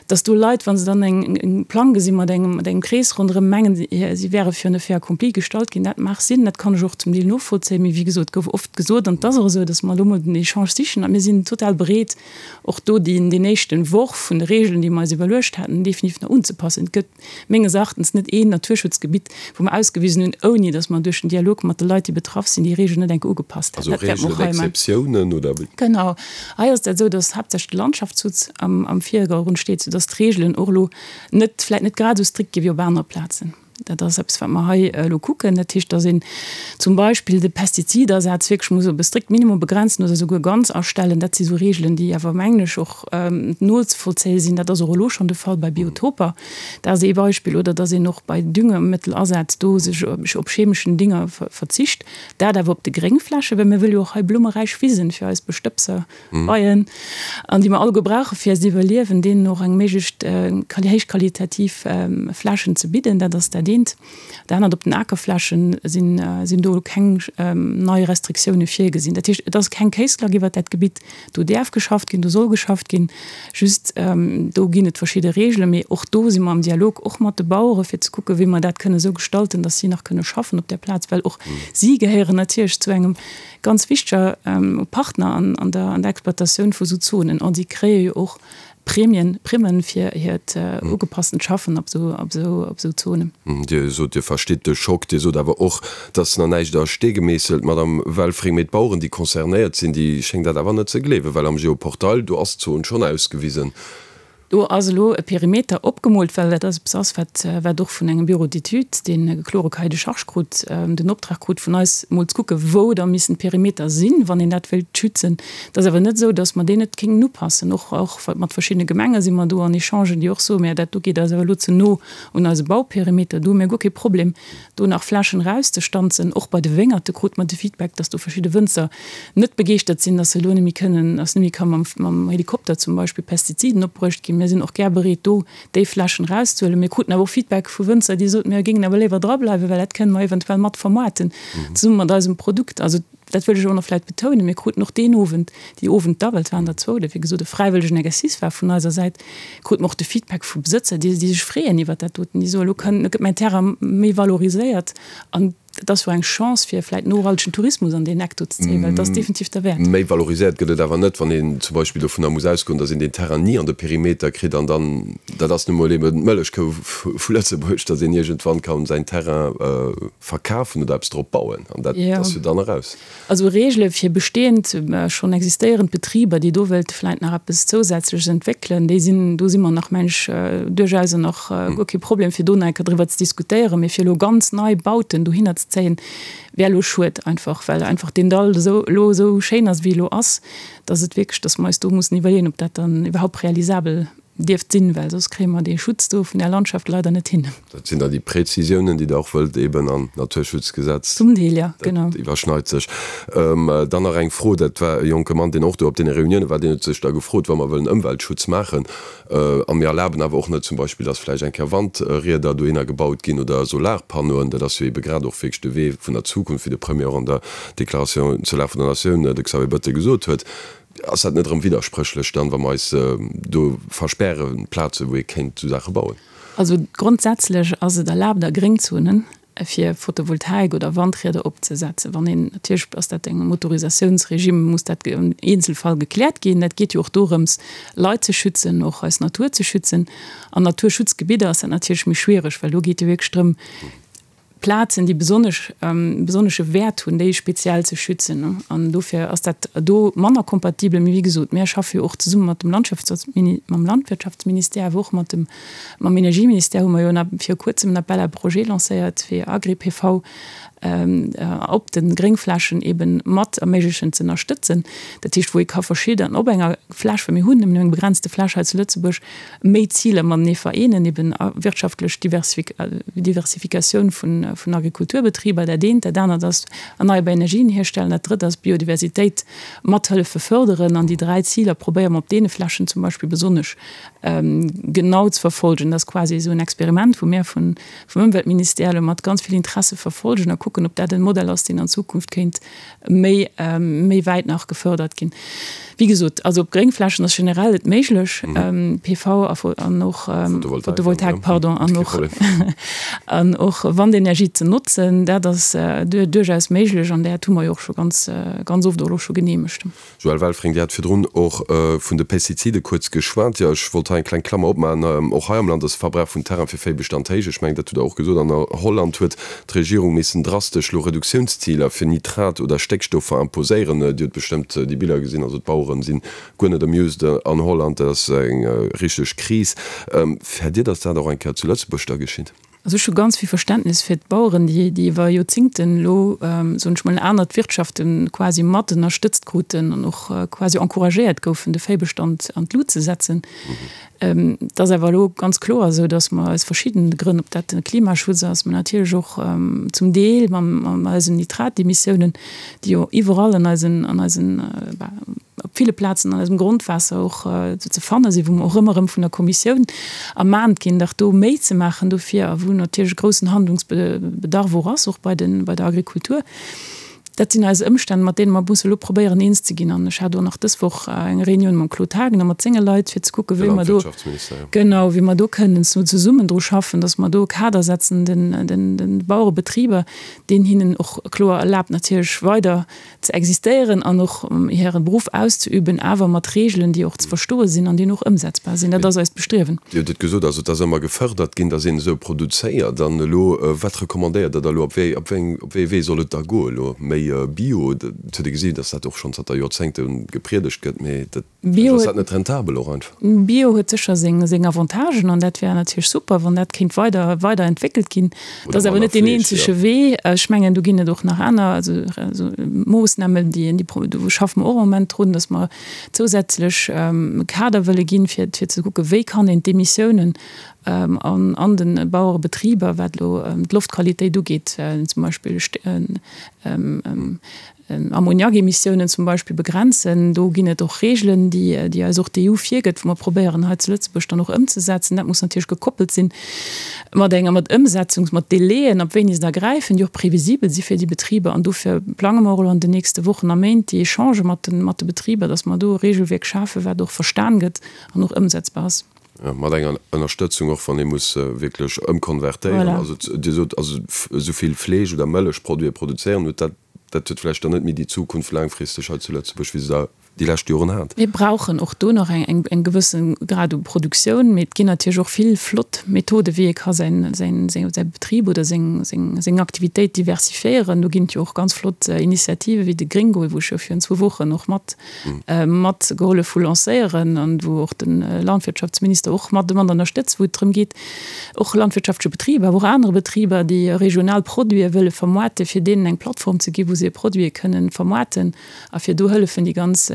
dass do Leit, wa se dann eng, e Plang gesi mat engem, mat engem Krees ronderëm, mengen, si wäre virun e Fait accompli gestallt ginn. Dat mag sinn, dat kann ech och zum Deel novollzéien. Mee wéi gesot, et gouf oft gesot, an et ass och esou, dass mer elo emol den Echange sichen a mir sinn total bereet, och do deen, deen éischten Worf vun de Regeln, déi mer eis iwwerluecht haten, definitiv nach unzepassen. Et gëtt menges Erachtens net een Naturschutzgebitt, wou mer ausgewisen hunn, ouni datt mer duerch den Dialog. mat de Leit, déi betraff sinn, déi Regeln net enk ugepasst hätten. Also Regeln, Exceptiounen, oder wéi? Genau. Hei ass dat esou, dass haaptsächlech de Landschaftsschutz am Virdergrund steet, soudass d'Regeln och elo net, vläicht net grad esou strikt gi wéi op anere Plazen. Dat ass eppes, wat mer hei elo kucken. Dat heescht, dass een zum Beispill de Pestizidasaz wierklech muss op e strikt Minimum begrenzen oder souguer ganz astellen. Dat si sou Regeln, déi awer, mengen ech, och nozevollzéie sinn. Dat ass och elo schonn de Fall bei Biotoper. Dat ass ee Beispill. Oder dass een och bei Düngemëttelasaz do sech op chemeschen Dinger verzicht. Dat awer op de Gréngflächen, well mir wëlle jo och hei blummeräich Wisen fir eis Bestëbser. Beien, an déi mer alleguer brauche fir eist Iwwerliewen, deenen och eng méiglechst héichqualitativ Flächen ze bidden. Dat ass dat eent. Dat anert, op den Akerflächen sinn, sinn do keng nei Restriktioune virgesinn. Dat heescht, et ass keng Kéisklack iwwert dat Gebitt. Do däerf geschafft ginn, do soll geschafft ginn. Just do ginn et verschidde Reegelen. Mee och do si mer am Dialog och mat de Bauere fir ze kucken, wéi mer dat kënne esou gestalten, datt si nach kënne schaffen op där Plaz, well och si gehéieren natierlech zu engem Ganz wichteger Partner an der Exploitatioun vu sou Zonen. An si kréie jo och Prämien, Primmen fir hiert ugepasstent Schaffen op sou Zonen. Dir sot, Dir verstitt de Schock. Dir sot awer och, et ass nach näischt a Stee gemeesselt, Madamm Welfring. Mee d'Baueren, déi concernéiert sinn, déi schéngen dat awer net ze gleewen, well am Geoportail, do ass d'Zon schonn ausgewisen. Do ass elo e Perimeter opgemoolt, well dat ass eppes ass, wat, wat och vun engem Bureau d'études, deen e klore Cahier de charges krut, den Optrag krut vun eis, mol ze kucken, wou da missen d'Perimeter sinn, wann een dat wéilt schützen. Et ass awer net esou, datt mer deen net kéinten upassen. Och, och mat verschiddene Gemenge si mer do an Echangen, déi och soen, Mä dat do geet eis awer elo ze no un eise Bauperimeter. Do hu mir guer kee Problem, do nach Flächen erauszestanzen. Och bei de Wéngerte krute mer de Feedback, datt do verschidde Wënzer net begeeschtert sinn, dass se elo net méi kënnen, dass net méi ka mam, mam Helikopter zum Beispill Pestiziden opbruecht ginn. Mir sinn och gär bereet, do déi Flächen erauszehuelen. Mir kruten awer och Feedback vu Wënzer, déi soten, mir géingen awer léiwer drableiwen, well dat kënne mer eventuell mat vermoarten, zesumme mat eisem Produkt. Also dat wëll ech och nach vläicht betounen, Mir kruten och deen Owend, déi Owend da, well et waren der zwou, oder wéi gesot e fräiwëllegen Exercice war vun eiser Säit, krute mer och de Feedback vu Besëtzer, déi, déi sech freeën iwwert dat doten, déi soen, elo kënn, elo gëtt mäin Terrain méi valoriséiert an Et ass jo eng Chance fir vläit nohaltegen Tourismus an deen Eck do ze zéien, well et ass definitiv derwäert. Méi valoriséiert gëtt et awer net, wann een zum Beispill dovunner muss ausgoen, datt een deen Terrain ni an de Perimeter kritt an dann, dat ass nu mol eben d'Mëllechkou vu Lëtzebuerg, datt een iergendwann ka säin Terrain verkafen oder eppes drop bauen an dat ass jo dann eraus. Also Reegele fir bestehend, schonn existéierend Betriber, déi do wëilte vläit nach eppes Zousätzleches entwéckelen, déi sinn, do si mer nach, meng ech, duerchaus an och guer kee Problem, fir do nach eng Kéier driwwer ze diskutéieren. Mee fir elo ganz nei Bauten dohinner ze zéien, wär elo schued einfach, well einfach deen Dall esou elo esou schéin ass, wéi e elo ass, dass et wierklech, dass mer eis do mussen iwwerleeën, ob dat dann iwwerhaupt realisabel dierft sinn, well soss kréie mer dee Schutz do vun där Landschaft leider net hin. Dat sinn da déi Präzisiounen, déi Der och wëllt eben an d'Naturschutzgesetz. Zum Deel, jo, genau. Dat iwwerschneit sech. Dann nach eng Fro, dat war e jonke Mann, deen och do op deene Reunioune war, deen huet sech da gefrot, wa mer wëllen Ëmweltschutz maachen a mir erlaben awer och net zum Beispill, dass vläicht eng Kéier Wandrieder dohinner gebaut ginn oder Solarpannoen, dat ass jo ebe grad och wierklech de Wee vun der Zukunft, wéi de Premier och an der Déclaration zur Lag vun der Natioun, de Xavier Bettel, gesot huet. Ass dat net erëm widderspréchlech dann, wa mer eis do verspäre Plaze wou ee kéint esou Saache bauen? Also grondsätzlech ass et erlaabt a Gréngzonen fir Photovoltaik oder Wandrieder opzesetzen. Wann een, natierlech ass dat engem Autorisatiounsregime, muss dat am Eenzelfall gekläert ginn. Dat geet jo och dorëms Leit ze schützen, och eis Natur ze schützen. An Naturschutzgebidder ass dat natierlech méi schwiereg, well do geet jo wierklech drëm, Plazen, déi besonnesch besonnesche Wäert hunn, déi speziell ze schützen. An dofir ass dat do manner kompatibel. Mee wéi gesot, mir schaffe jo och zesumme mat dem Landschaftsmini-, mam Landwirtschaftsministère, awer och mat dem, mam Energieministère hu mer jo en, viru kuerzem en Appel à projets lancéiert fir Agri-PV op de Gréngflächen eeben mat erméiglechen ze ënnerstëtzen. Dat heescht, wou ee ka verschidden op enger Fläch, well mir hunn nëmmen eng begrenzte Fläch hei zu Lëtzebuerg, méi Ziler matenee vereenen, eben wirtschaftlech Diversifikatioun vun Agrikulturbetriber, dat eent, dat anert ass erneierbar Energien hierstellen, dat drëtt ass Biodiversitéit mat hëllefe fërderen. An déi 3 Ziler probéiere mer op deene Flächen zum Beispill besonnesch genau ze verfolgen. Dat ass quasi esou en Experiment, wou mir vum Ëmweltministère elo mat ganz vill Interesse verfolgen a kucken, ob dat e Modell ass, deen an Zukunft kéint méi méi wäit nach gefördert ginn. Wéi gesot, also op Gréngflächen ass generell et méiglech, PV a an och Photovoltaik, pardon, an och an och Wandenergie ze notzen. Dat ass duerchaus méiglech an dat hu mer jo och scho ganz ganz oft och elo scho geneemegt. Joëlle Welfring, Dir hat virdrun och vun de Pestizide kuerz geschwat. Jo, ech wollt hei eng kleng Klammer opmaachen. Och hei am Land ass de Verbrauch vun Terrain fir Véibestand héich. Ech mengen, dat hutt Der och gesot. An a Holland huet d'Regierung missen drastesch. drastesch elo Reduktiounsziler fir Nitrat oder Stéckstoffer imposéieren. Dir hutt bestëmmt déi Biller gesinn, also d'Baueren sinn guer net amused an Holland, dat ass eng richteg Kris. Fäert Dir, datt dat och eng Kéier zu Lëtzebuerg da geschitt? Also ech hu ganz vill Verständnis fir d'Baueren, déi déi iwwer Joerzingten elo, soen ech mol, anert Wirtschafte quasi mat ënnerstëtzt kruten an och quasi encouragéiert goufen, de Véibestand an d'Lut ze setzen. Et ass awer elo ganz kloer esou, datt mer aus verschiddene Grënn, ob dat de Klimaschutz ass, mä natierlech och zum Deel mam eisen Nitratemissiounen, déi jo iwwerall an eisen, an eisen, op ville Plazen an eisem Grondwaasser och ze fanne sinn, wou mer och ëmmer erëm vun der Kommissioun ermahnt ginn, dach do méi ze maachen dofir a wou natierlech e groussen Handlungsbedarf och ass, och bei den, bei der Agrikultur. Dat sinn eis Ëmstänn, mat deene mer musse elo probéieren eens ze ginn. An ech hat och nach dës Woch eng Reunioun mam Claude Haagen a mat senge Leit, fir ze kucken, wéi mer do, genau, wéi mer do kënnen zesummen dru schaffen, dass mer do e Kader setzen den, den, den Bauerebetriber, deen hinnen och kloer erlaabt natierlech weider ze existéieren an och hire Beruff auszeüben, awer mat Regeln, déi och ze verstoe sinn an déi och ëmsetzbar sinn. Dat ass eist Bestriewen. Dir hutt et gesot, also et ass ëmmer gefërdert ginn, datt een esou produzéiert. An elo, wat recommandéiert Der da elo? Op wéi, op wéi eng, op wéi ee Wee soll et da goen elo? Méi Bio? Et huet ee gesinn, datt dat och schonn zanter Joerzéngte gepriedegt gëtt, mee dat, Bio ass dat net rentabel och einfach? Bio huet sécher seng Avantagen an dat wär natierlech super, wann dat kéint weider weider entwéckelt ginn. Dat ass awer net deen eenzege Wee. Ech mengen, do ginn et och nach aner also Moossnamen, déi déi do schaffe mer och am Moment drun, datt mer zousätzlech e Kader wëlle ginn, fir fir ze kucken, wéi kann een d'Emissiounen an an de Bauerebetriber, wat elo d'Loftqualitéit ugeet, zum Beispill Ammoniakemissiounen zum Beispill begrenzen. Do ginn et och Regeln, déi déi eis och d'EU virgëtt, wou mer probéieren hei zu Lëtzebuerg dann och ëmzesetzen. Dat muss natierlech gekoppelt sinn mat enger mat Ëmsetzungs-, mat Délaiën, ab wéini se da gräifen, déi och previsibel si fir déi Betriber. An dofir plange mer och elo an den nächste Wochen a Méint déi Echangë mat de mat de Betriber, dass mer do e Regelwierk schafen, wat och verstan gëtt an och ëmsetzbar ass. Mat enger Ënnerstëtzung och, wann ee muss wierklech ëmkonvertéieren. Voilà. Also Dir sot, also esou vill Fleesch oder Mëllechproduite produzéieren, huet dat, dat huet vläicht dann net méi déi Zukunft laangfristeg hei zu Lëtzebuerg, wéi se da déi lescht Joren hat. Mir brauchen och do nach eng, eng, eng gewësse Grad u Produktioun, mee et ginn natierlech och vill flott Methoden, wéi ee ka säin, säin, säin, säi Betrib oder seng, seng, seng Aktivitéit diversifiéieren. Do ginn et jo och ganz flott Initiative wéi de Gringgo, wou ech jo virun zwou Wochen och mat mat gehollef hu lancéieren an wou och de Landwirtschaftsminister och mat mat ënnerstëtzt, wou et drëm geet, och landwirtschaftleche Betriber, awer och anere Betriber, déi regional Produite wëlle vermoarten, fir deenen eng Plattform ze ginn, wou se hir Produite kënnen vermoarten a fir do hëllefen, déi ganz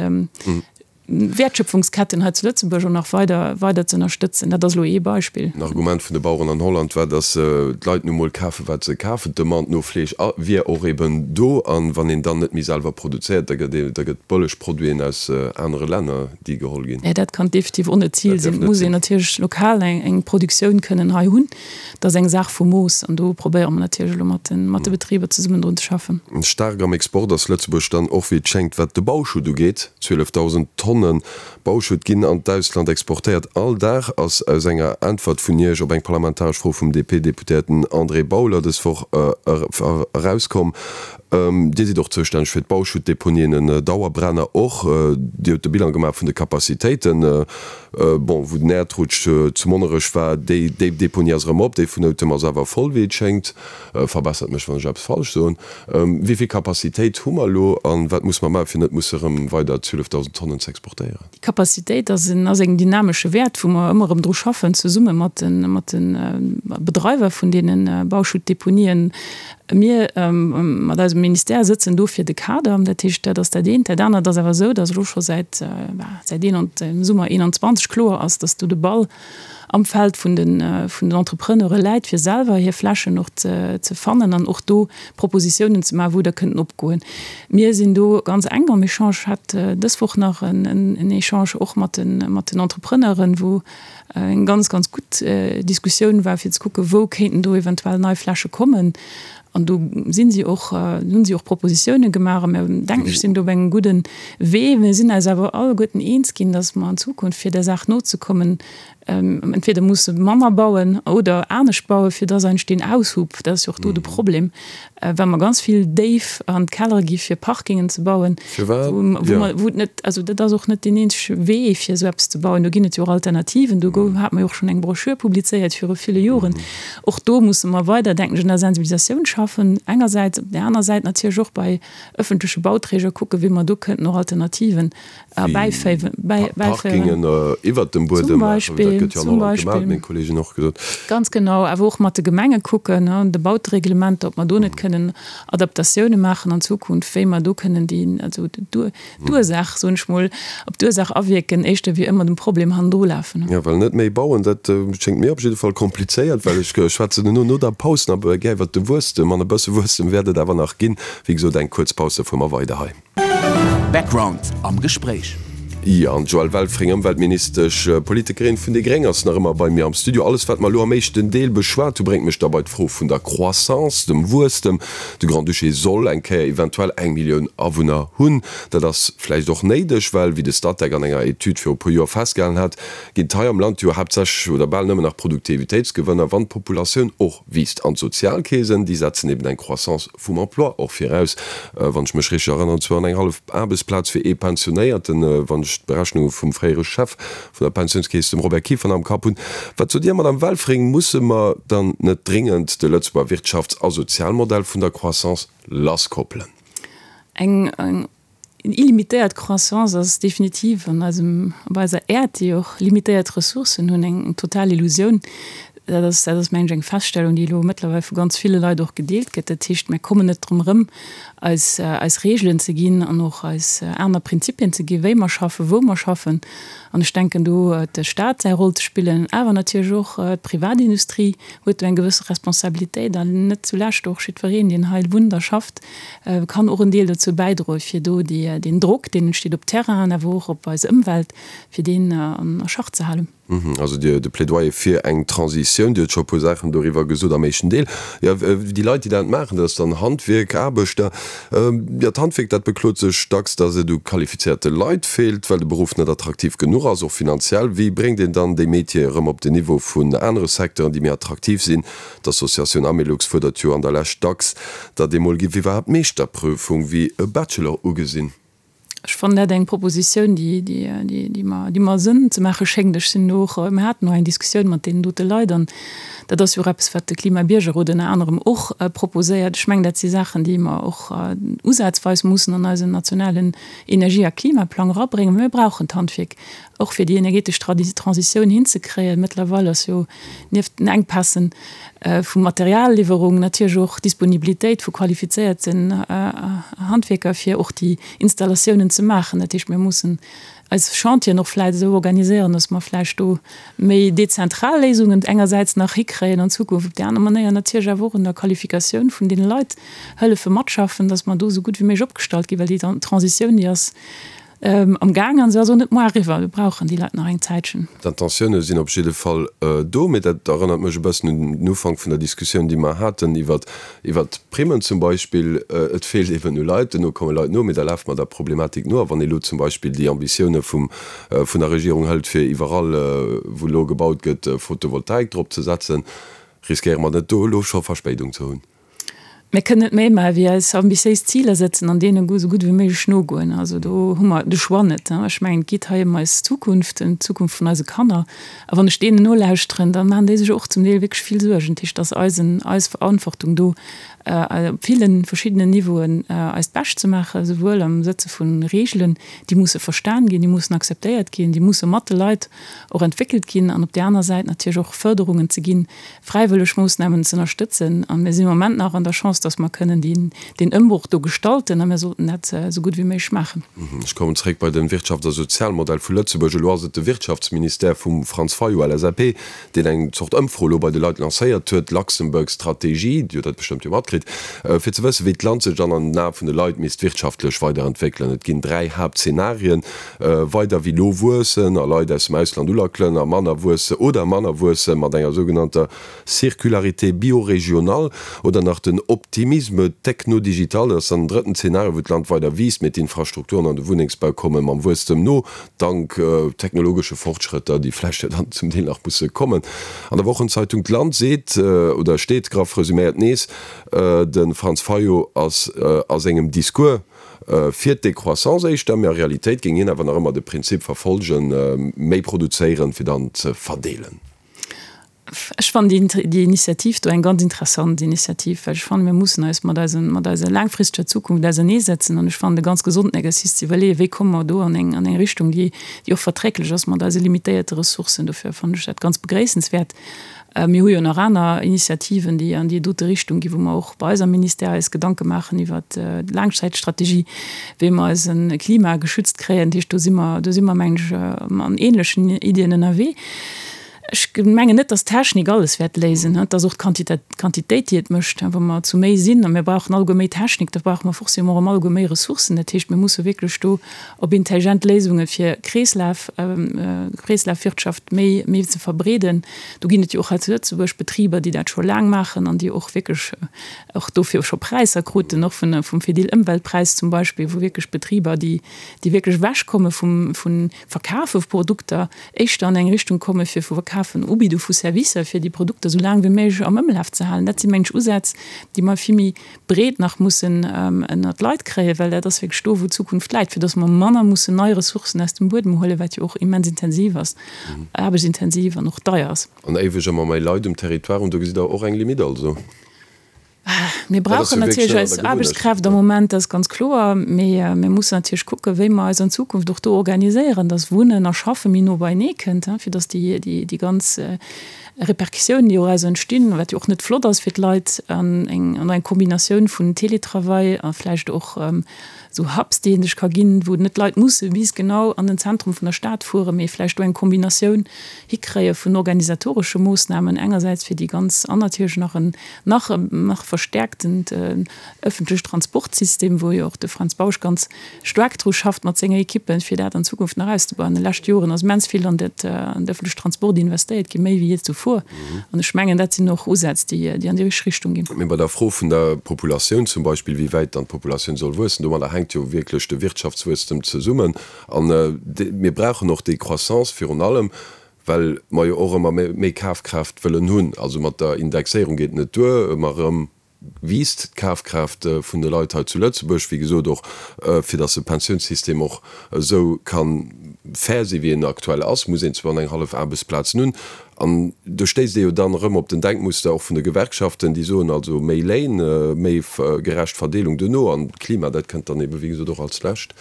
Wäertschöpfungsketten hei zu Lëtzebuerg och nach weider weider ze ënnerstëtzen. Dat ass elo ee Beispill. En Argument vun de Baueren an Holland war, datt d'Leit nu mol kafen, wat se kafen. D'Demande no Fleesch wier och eben do. A wann een dann net méi selwer produzéiert, da gëtt ee, da gëtt bëlleg Produiten aus anere Länner, déi geholl ginn. Mä dat kann definitiv och net d'Zil sinn. Et muss een natierlech lokal eng Produktioun kënnen hei hunn. Dat ass eng Saach vu Mooss. An do probéiere mer natierlech elo mat de Betriber zesummen drun ze schaffen. Staark am Export ass Lëtzebuerg dann och, wéi et schéngt, wat de Bauschutt ugeet. 12.000 Tonne Bauschutt ginn an d'Ausland exportéiert all Dag, ass aus enger Äntwert vun Iech op eng parlamentaresch Fro vum DP-Deputéierten André Bauler dës Woch erauskomm. Dir sidd och zoustänneg fir d'Bauschuttdeponien, en Dauerbrenner och. Dir hutt de Bilan gemaach vun de Capacitéiten. Bon, wou den Äerdrutsch zu Monnerech war, déi Deponie ass erëm op, déi vun Noutem ass awer voll, wéi et schéngt. Verbessert mech, wann ech eppes falsch soen. Wéi vill Capacitéit hu mer elo a wat musse mer maachen, fir net musse erëm weider 12.000 Tonnen ze exportéieren? Déi Capacitéit ass en ass en dynamesche Wäert, wou mer ëmmer erëm dru schaffen, zesumme mat de mat de Bedreiwer vun deene Bauschuttdeponien. Mir mat eisem Ministère sëtzen do fir de Kader. Dat heescht, dat ass dat eent. Dat anert ass awer esou, datt elo scho säit säit dem Summer 21 kloer ass, datt do de Ball am Feld vun den vun den Entrepreneure läit, fir selwer hir Flächen och ze ze fannen an och do Propositiounen ze maachen, wou der kënnten opgoen. Mir sinn do ganz enk am Echange. Ech hat dës Woch nach en en Echange och mat den mat den Entrepreneuren, wou eng ganz, ganz gutt Diskussioun war, fir ze kucken, wou kéinten do eventuell nei Fläche kommen. An do sinn si och, hunn si och Propositiounen gemaach a mir, denken ech, sinn do op engem gudden Wee. Mir sinn eis awer alleguerten eens ginn, dass mer an Zukunft, fir där Saach nozekommen, entweder musse manner bauen oder anescht bauen, fir dass eigentlech deen Aushub, dat ass jo och do de Problem, well mer ganz vill déif an d'Kellere gi fir Parkingen ze bauen, wou et net, also dat ass och net deen eenzege Wee fir esou eppes ze bauen. Do ginn et jo och Alternativen. Do hat mer jo och schonn eng Broschür publizéiert viru ville Joren. Och do musse mer weider, denken ech, un der Sensibilisatioun schaffen. schaffen engersäits, op där aner Säit natierlech och bei ëffentleche Bauträger kucken, wéi mer do kënnten och Alternativen erbäiféiwen, bäiféieren. Parkingen iwwert dem Buedem maachen, dat gëtt jo an Holland gemaach, huet meng Kolleegin och gesot. Ganz genau, awer och mat de Gemenge kucken, de Bautereglementer, ob mer do net kënnen Adaptatioune maachen an Zukunft, wéi mer do kënnen déi, also d'Ursaach, soen ech mol, op d'Ursaach awierken, éischter wéi ëmmer dem Problem hannendru lafen. Jo, well net méi bauen, dat schéngt mir op jidde Fall komplizéiert, well ech schwätzen elo no der Paus nach gär iwwert de Wuesstem, an e bësse Wuesstem wäert et awer nach ginn. Wéi gesot, eng kuerz Paus, da fuere mer weider hei. Background am Gespréich. Jo, an d'Joëlle Welfring, Ëmweltministesch, Politikerin vun déi Gréng, ass nach ëmmer bei mir am Studio. Alles, wat mer elo am éischten Deel beschwat hu, bréngt mech da bei d'Fro vun der Croissance, dem Wuesstem. De Grand-Duché soll eng Kéier eventuell eng Millioun Awunner hunn. Dat ass vläicht och néideg, well, wéi de Statec an enger Etüd viru puer Joer festgehalen hat, ginn et hei am Land jo haaptsächlech oder bal nëmmen nach Produktivitéitsgewënner, wann d'Populatioun och wiisst. An d'Sozialkeesen, déi setzen eben eng Croissance vum Emploi och viraus, wann ech mech richteg erënneren, zwou an eng hallef Aarbechtsplaz fir ee Pensionéierten, wann ech d'Berechnunge vum fréiere Chef vun der Pensiounskeess, dem Robert Kieffer, nach am Kapp hunn. Wat sot Dir, Madame Welfring, musse mer dann net dringend de Lëtzebuerger Wirtschafts a Sozialmodell vun der Croissance lasskoppelen? Eng illimitéiert Croissance ass definitiv an eisem, op eiser Äerd, déi och limitéiert Ressourcen hunn, eng total Illusioun. Dat ass, dat ass, mengen ech, eng Feststellung, déi elo mëttlerweil vu ganz ville Leit och gedeelt gëtt. Dat heescht, mir kommen net drëm erëm, eis, eis Regeln ze ginn an och eis aner Prinzipien ze ginn, wéi mer schaffen, wou mer schaffen. An ech denken, do huet de Stat säi Roll ze spillen, awer natierlech och d'Privatindustrie huet do eng gewësse Responsabilitéit an net zulescht och jiddwereen, deen hei wunnt a schafft, kann och en Deel dozou bäidroen, fir do deen Drock, deen entsteet op Terrainen, awer och op eis Ëmwelt, fir deen a Schach ze halen. Also de Plädoyer fir eng Transitioun, Dir hutt scho e puer Saachen doriwwer gesot am éischten Deel. Jo, déi Leit, déi dat maachen, dat ass dann Handwierk, Aarbechter. Jo, d'Handwierk, dat beklot sech dacks, datt et u qualifizéierte Leit feelt, well de Beruff net attraktiv genuch ass, och finanziell. Wéi bréngt een dann déi Métiere erëm op den Niveau vun anere Secteuren, déi méi attraktiv sinn? D'Associatioun Amelux fuerdert jo an der Lescht dacks, datt ee mol giff iwwerhaapt d'Meeschterprüfung wéi e Bachelor ugesinn. Ech fannen dat eng Propositioun, déi mer Sënn ze maache schéngt. Ech sinn och, mir haten och eng Diskussioun mat deenen dote Leit an dat ass jo och eppes, wat de Klima-Biergerrot ënner anerem och proposéiert. Ech mengen, dat si Saachen, déi mer och usazweis mussen an eisen nationalen Energie a Klimaplang erabréngen. Mir brauchen d'Handwierk och fir déi energetesch Transitioun hinzekréien. Mëttlerweil ass jo nieft den Enkpässen vu Materialliwwerung natierlech och d'Disponibilitéit vu qualifizéierten Handwierker, fir och déi Installatiounen ze maachen. Dat heescht, mir mussen eis Chantieren och vläicht esou organiséieren, dass mer vläicht do méi dezentral Léisungen engersäits nach hikréien an Zukunft, op déi aner Manéier natierlech awer och un der Qualifikatioun vun deene Leit hëllefe matschaffen, dass mer do esou gutt wéi méiglech opgestallt ginn, well déi Transitioun, déi ass Am Gaang an se ass och net moar eriwwer. Mir brauchen déi Leit nach eng Zäitchen. D'Intentioune sinn op jidde Fall do, mee dat erënnert mech e bëssen un den Ufank vun der Diskussioun, déi mer haten iwwer d'Primmen zum Beispill. Et feelt eben u Leit, duerno komme Leit no, mee da lafe mer der Problematik no. A wann ee lo zum Beispill déi Ambitioune vum, vun der Regierung hëlt, fir iwwerall, wou elo gebaut gëtt, Photovoltaik drop ze setzen, riskéiere mer net do elo scho Verspéidung ze hunn? Mir kënnen net méi maache wéi eis ambitiéis Ziler setzen an deene esou gutt wéi méiglech nogoen. Also do hu mer de Choix net. Ech mengen, et geet hei ëm eis Zukunft, ëm d'Zukunft vun eise Kanner. A wann ech deenen nolauschteren, da maachen déi sech och zum Deel wierklech vill Suergen. Dat heescht, et ass eisen, eis Verantwortung do op ville verschiddenen Niveauen eist Bescht ze maachen, souwuel am Sëtze vu Reegelen, déi musse verstan ginn, déi mussen akzeptéiert ginn, déi musse mat de Leit och entwéckelt ginn, an op där aner Säit natierlech och Fërderungen ze ginn, fräiwëlleg Moossnamen ze ënnerstëtzen. A mir sinn am Moment nach an der Chance, dass mer kënnen deen Ëmbroch do gestalten a mir sollten dat esou gutt wéi méiglech maachen. Ech kommen zréck bei de Wirtschafts a Sozialmodell vu Lëtzebuerg. Elo ass et de Wirtschaftsministère vum Franz Fayot, LSAP, deen eng Zort Ëmfro elo bei de Leit lancéiert huet, Luxembourg Strategie, Dir hutt dat bestëmmt jo matkritt, fir ze wëssen, wéi d'Land sech dann an den Ae vun de Leit misst wirtschaftlech weiderentwéckelen. Et ginn 3 Haaptzenarien, Weider wéi lo wuessen a Leit aus dem Ausland ulackelen a manner wuesse oder manner wuesse mat enger sougenannter Circularité biorégionale oder nach den Optimisme technodigital, dat ass dann den drëtten Zeenario, wou d'Land weider wiisst, mee d'Infrastrukturen an de Wunnengsbau komme mam Wuesstem no, dank technologesche Fortschrëtter, déi vläicht jo dann zum Deel nach musse kommen. An der Wochenzeitung D'Land seet oder steet, graff resuméiert nees, de Franz Fayot ass a sengem Discours, Fir d'Décroissance éischter, mee a Realitéit géing hien awer nach ëmmer de Prinzip verfolgen, méi produzéieren, fir dann ze verdeelen. Ech fannen déi Initiativ do eng ganz interessant Initiativ, well ech fannen, mir mussen eis mat eisen, mat eiser laangfristeger Zukunft auserneesetzen. An ech fannen et e ganz gesonden Exercice ze iwwerleeën, wéi komme mer do an eng, an eng Richtung, déi, déi och verträglech ass mat eise limitéierte Ressourcen. Dofir fannen ech dat ganz begréissenswäert. Mir hu jo nach aner Initiativen, déi an déi dote Richtung ginn, wou mer och bei eis am Ministère eis Gedanke maachen iwwert d'Laangzäitstrategie, wéi mer eise Klima geschützt kréien. Dat heescht, do si mer, do si mer, mengen ech, an ähnlechen Iddien ënnerwee. Ech mengen net, dass d'Technik alles wäert léisen. Et ass och d'Quantitéit, déi et mécht. Wa mer zu méi sinn a mir brauchen alleguer méi Technik, da brauche mer forcément erëm alleguer méi Ressourcen. Dat heescht, mir musse wierklech do op intelligent Léisunge fir Kreeslaf, Kreeslafwirtschaft méi, méi ze verbreeden. Do ginn et jo och hei zu Lëtzebuerg Betriber, déi dat scho laang maachen an déi och wierklech och dofir scho Präisser kruten, och vun, vum Fedil Ëmweltpräis zum Beispill, wou wierklech Betriber, déi, déi wierklech ewechkomme vum, vun Verkafe vu Produkter, éischter an eng Richtung komme fir vu Verkafen, Ubidde vu Servicer, fir déi Produkter esou laang wéi méiglech am Ëmlaf ze halen. Dat si mengen ech Usätz, déi mer vill méi breet nach mussen ënnert d'Leit kréien, well dat ass wierklech do, wou d'Zukunft läit, fir datt mer manner mussen nei Ressourcen aus dem Buedem huelen, wat jo och immens intensiv ass, aarbechtsintensiv an och deier ass. An éiweg ëmmer méi Leit um Territoire hunn, do gesitt Der och eng Limite also? Mir brauchen natierlech eis Aarbechtskräft am Moment, dat ass ganz kloer. Mee mir mussen natierlech kucken, wéi mer eis an Zukunft och do organiséieren, dass Wunnen a Schaffe méi no beienee kënnt, fir dass déi ganz Repercussiounen, déi doraus entstinn, wat jo och net flott ass fir d'Leit, an eng Kombinatioun vun Télétravail a vläicht och esou Hubs, déi een sech ka ginn, wou net d'Leit musse bis genau an den Zentrum vun der Stad fueren, mee vläicht do eng Kombinatioun hikréie vun organisatoresche Moossnamen engersäits fir déi ganz an natierlech nach en nach nach verstärkten ëffentlech Transportsystem, wou jo och de Fränz Bausch ganz staark dru schafft mat senger Equippe fir dat an Zukunft nach auszebauen. An de leschte Joren ass immens vill an dat an de ëffentlech Transport investéiert ginn, méi wéi jee zuvor. An ech mengen, dat sinn och Usätz, déi déi an déi richteg Richtung ginn. Mee bei der Fro vun der Populatioun zum Beispill, wéi wäit dann d'Populatioun soll wuessen, domadder hänkt jo wierklech de Wirtschaftswuesstem zesummen. A mir brauchen och déi Croissance virun allem, well mer jo och ëmmer méi Kafkraaft wëllen hunn. Also mat der Indexéierung geet et net duer, ëmmer erëm wiisst d'Kafkraaft vun de Leit hei zu Lëtzebuerg, wéi gesot och fir datt de Pensiounssystem och esou ka fair si wéi en aktuell ass, muss een zwar an eng hallef Aarbechtsplazen hunn. An do stéisst ee jo dann erëm op den Denkmuster och vun de Gewerkschaften, déi soen, also méi Léin, méi gerecht Verdeelung duerno an d'Klima, dat kënnt dann ebe wéi gesot och als lescht.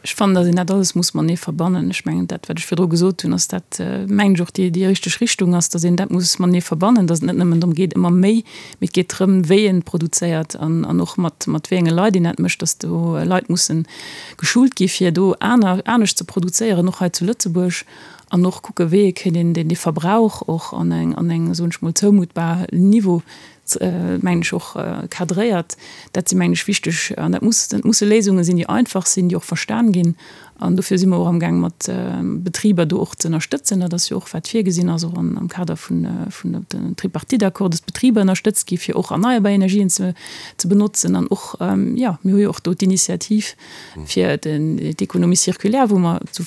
Ech fannen, datt een dat alles muss matenee verbannen. Ech mengen, dat, wat ech virdru gesot hunn, ass dat, mengen ech, och déi, déi richteg Richtung ass, datt een dat muss matenee verbannen, datt et net nëmmen drëm geet, ëmmer méi, mee et geet drëm, wéi een produzéiert an, an och mat, mat wéi enge Leit een dat mécht, datt do Leit mussen geschult gi fir do aner, anescht ze produzéieren, och hei zu Lëtzebuerg, an och kucke wéi ee kéint een deen, dee Verbrauch och an eng, an eng, soen ech mol, zoumutbar Niveau mengen ech, och cadréiert. Dat si mengen ech wichteg an dat muss, dat musse Léisunge sinn, déi einfach sinn, déi och verstan ginn. An dofir si mer och amgaang mat Betriber do och ze ënnerstëtzen. Dat ass jo och wat virgesinn ass, och am Kader vun den Tripartite-Accord, dass d'Betriber ënnerstëtzt gi fir och erneierbar Energien ze benotzen. An och, jo, mir hu jo och do d'Initiativ fir d'Économie circulaire, wou mer zu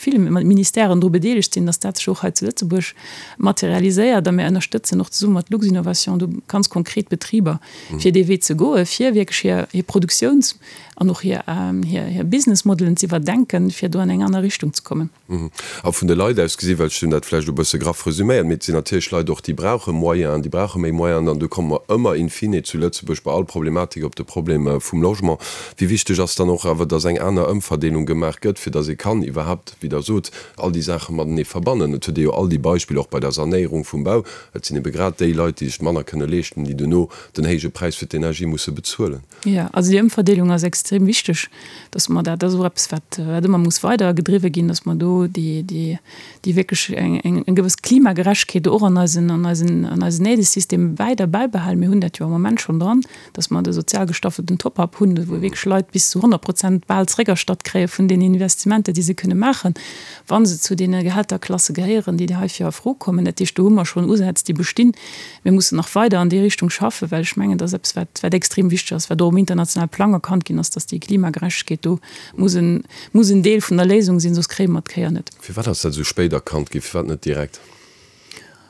ville Ministèren dru bedeelegt sinn, dass dat sech och hei zu Lëtzebuerg materialiséiert. A mir ënnerstëtzen och zesumme mat Luxinnovation do ganz konkret Betriber, fir dee Wee ze goen, fir wierklech hir hir Produktiouns an och hir hir Businessmodelen ze iwwerdenken, fir do an eng aner Richtung ze kommen. A vun de Leit aus gesi, well ech hunn dat vläicht e bësse graff resüméiert, mee et sinn natierlech Leit och, déi brauche Moyenen, déi brauche méi Moyenen an do komme mer ëmmer in fine zu Lëtzebuerg bei all Problematik op de Problem vum Logement. Wéi wichteg ass dann och awer, datt eng aner Ëmverdeelung gemaach gëtt, fir datt ee kann iwwerhaupt, wéi Der sot, all déi Saache matenee verbannen? Et huet ee jo all déi Beispiller och bei der Sanéierung vum Bau, et sinn ebe grad déi Leit, déi sech manner kënne leeschten, déi duerno den héije Präis fir d'Energie musse bezuelen. Jo, also déi Ëmverdeelung ass extrem wichteg, dass mer dat, dat ass och eppes, wat, wat ëmmer muss weider gedriwwe ginn, dass mer do déi, déi, déi wierklech eng, eng, eng gewëss Klimagerechtegkeet och an eisen, an eisen, an eisen Aidesystem weider bäibehalen. Mir hunn dat jo am Moment schonn dran, dass mer de sozial gestaffelten Top-up hunn, wou wierklech Leit bis zu 100 Prozent bal zréckerstatt kréie vun den Investissementer, déi se kënne maachen, wa se zu deene Gehälterklasse gehéieren, déi heifir a Fro kommen. Dat heescht, do hu mer schonn Usätz, déi bestinn. Mir mussen nach weider an déi Richtung schaffen, well ech mengen, dat ass eppes, wat, wat extrem wichteg ass, wat och um internationale Plang erkannt ginn ass, dass déi Klimagerechtegkeet do muss en, muss en Deel vun der Léisung sinn, soss kréie mer d'Kéier net. Firwat ass dat esou spéit erkannt ginn? Firwat net direkt?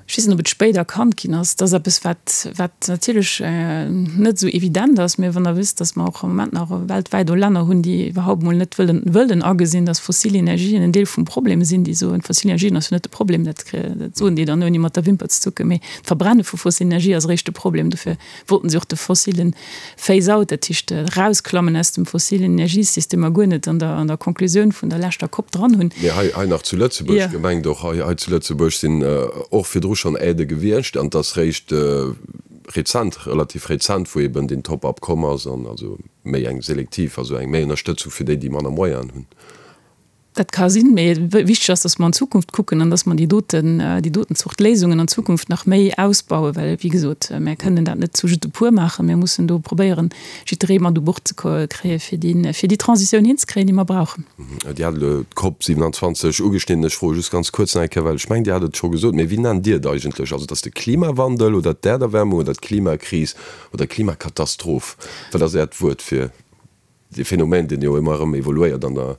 Ech weess net, ob et spéit erkannt ginn ass. Dat ass eppes, wat, wat natierlech net esou evident ass. Mä wann Der wësst, datt mer och am Moment nach weltwäit o Länner hunn, déi iwwerhaupt mol net wëllen, wëllen agesinn, datt fossil Energien en Deel vum Problem sinn, déi soen, fossil Energien ass jo net de Problem, dat, dat soen déi dann ouni mat der Wimper ze zucken, mee d'Verbrenne vu fossil Energie ass eréischt de Problem. Dofir wollten se och de fossilen Phase-out, dat heescht erausklammen aus dem fossilen Energiesystemer, guer net an der an der Konklusioun vun der leschter Cop dran hunn. Mee hei hei nach zu Lëtzebuerg gemengt, och hei hei zu Lëtzebuerg sinn och virdru schonn Aidë gewiescht an et ass réischt rezent, relativ rezent, wou eben deen Top-up komm ass an also méi eng selektiv, also eng méi Ënnerstëtzung fir déi, déi manner Moyenen hunn. Dat ka sinn, mee wichteg ass, dass mer an d'Zukunft kucken an dass mer déi doten, déi doten Zort Léisungen an Zukunft nach méi ausbauen, well, wéi gesot, mär kënnen dat net zu just e puer maachen. Mir mussen do probéieren, jidderee mat u Bord ze kréien, fir déi, fir déi Transitioun hinzekréien, déi mer brauchen. Dir hat elo d'COP 27 ugeschnidden. Ech froe just ganz kuerz nach eng Kéier, well ech mengen, Dir hat et scho gesot, mee wéi nennt Dir et eigentlech? Also, et ass de Klimawandel oder d'Äerderwärmung oder d'Klimakris oder d'Klimakatastroph? Wat ass Äert Wuert fir Dee Phänomen, deen jo ëmmer erëm evoluéiert an der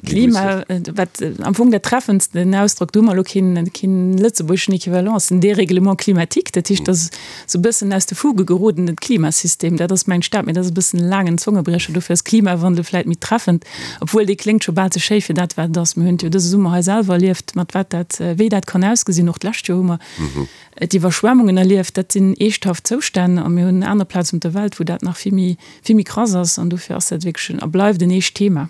Klima, wat am Fong dat treffendst den Ausdrock, do hu mer elo keen, keen lëtzebuergeschen Equivalent, ass den Dérèglement climatique. Dat heescht, dat ass esou e bëssen aus de Fuge geroden, den Klimasystem. Dat ass mäin Staat, mee dat ass e bëssen e laangen Zongebriecher. Dofir ass Klimawandel vläit méi treffend, obwuel dee kléngt scho bal ze schéi fir dat, wat et ass. Mir hunn et jo dëse Summer hei selwer erlieft, mat wat dat, wéi dat kann ausgesinn. Och d'lescht Joer hu mer d'Iwwerschwemmungen erlieft. Dat sinn eeschthaft Zoustänn a mir hunn aner Plazen op der Welt, wou dat nach vill méi, vill méi krass ass an dofir ass dat wierklech en a bleift en eescht Thema.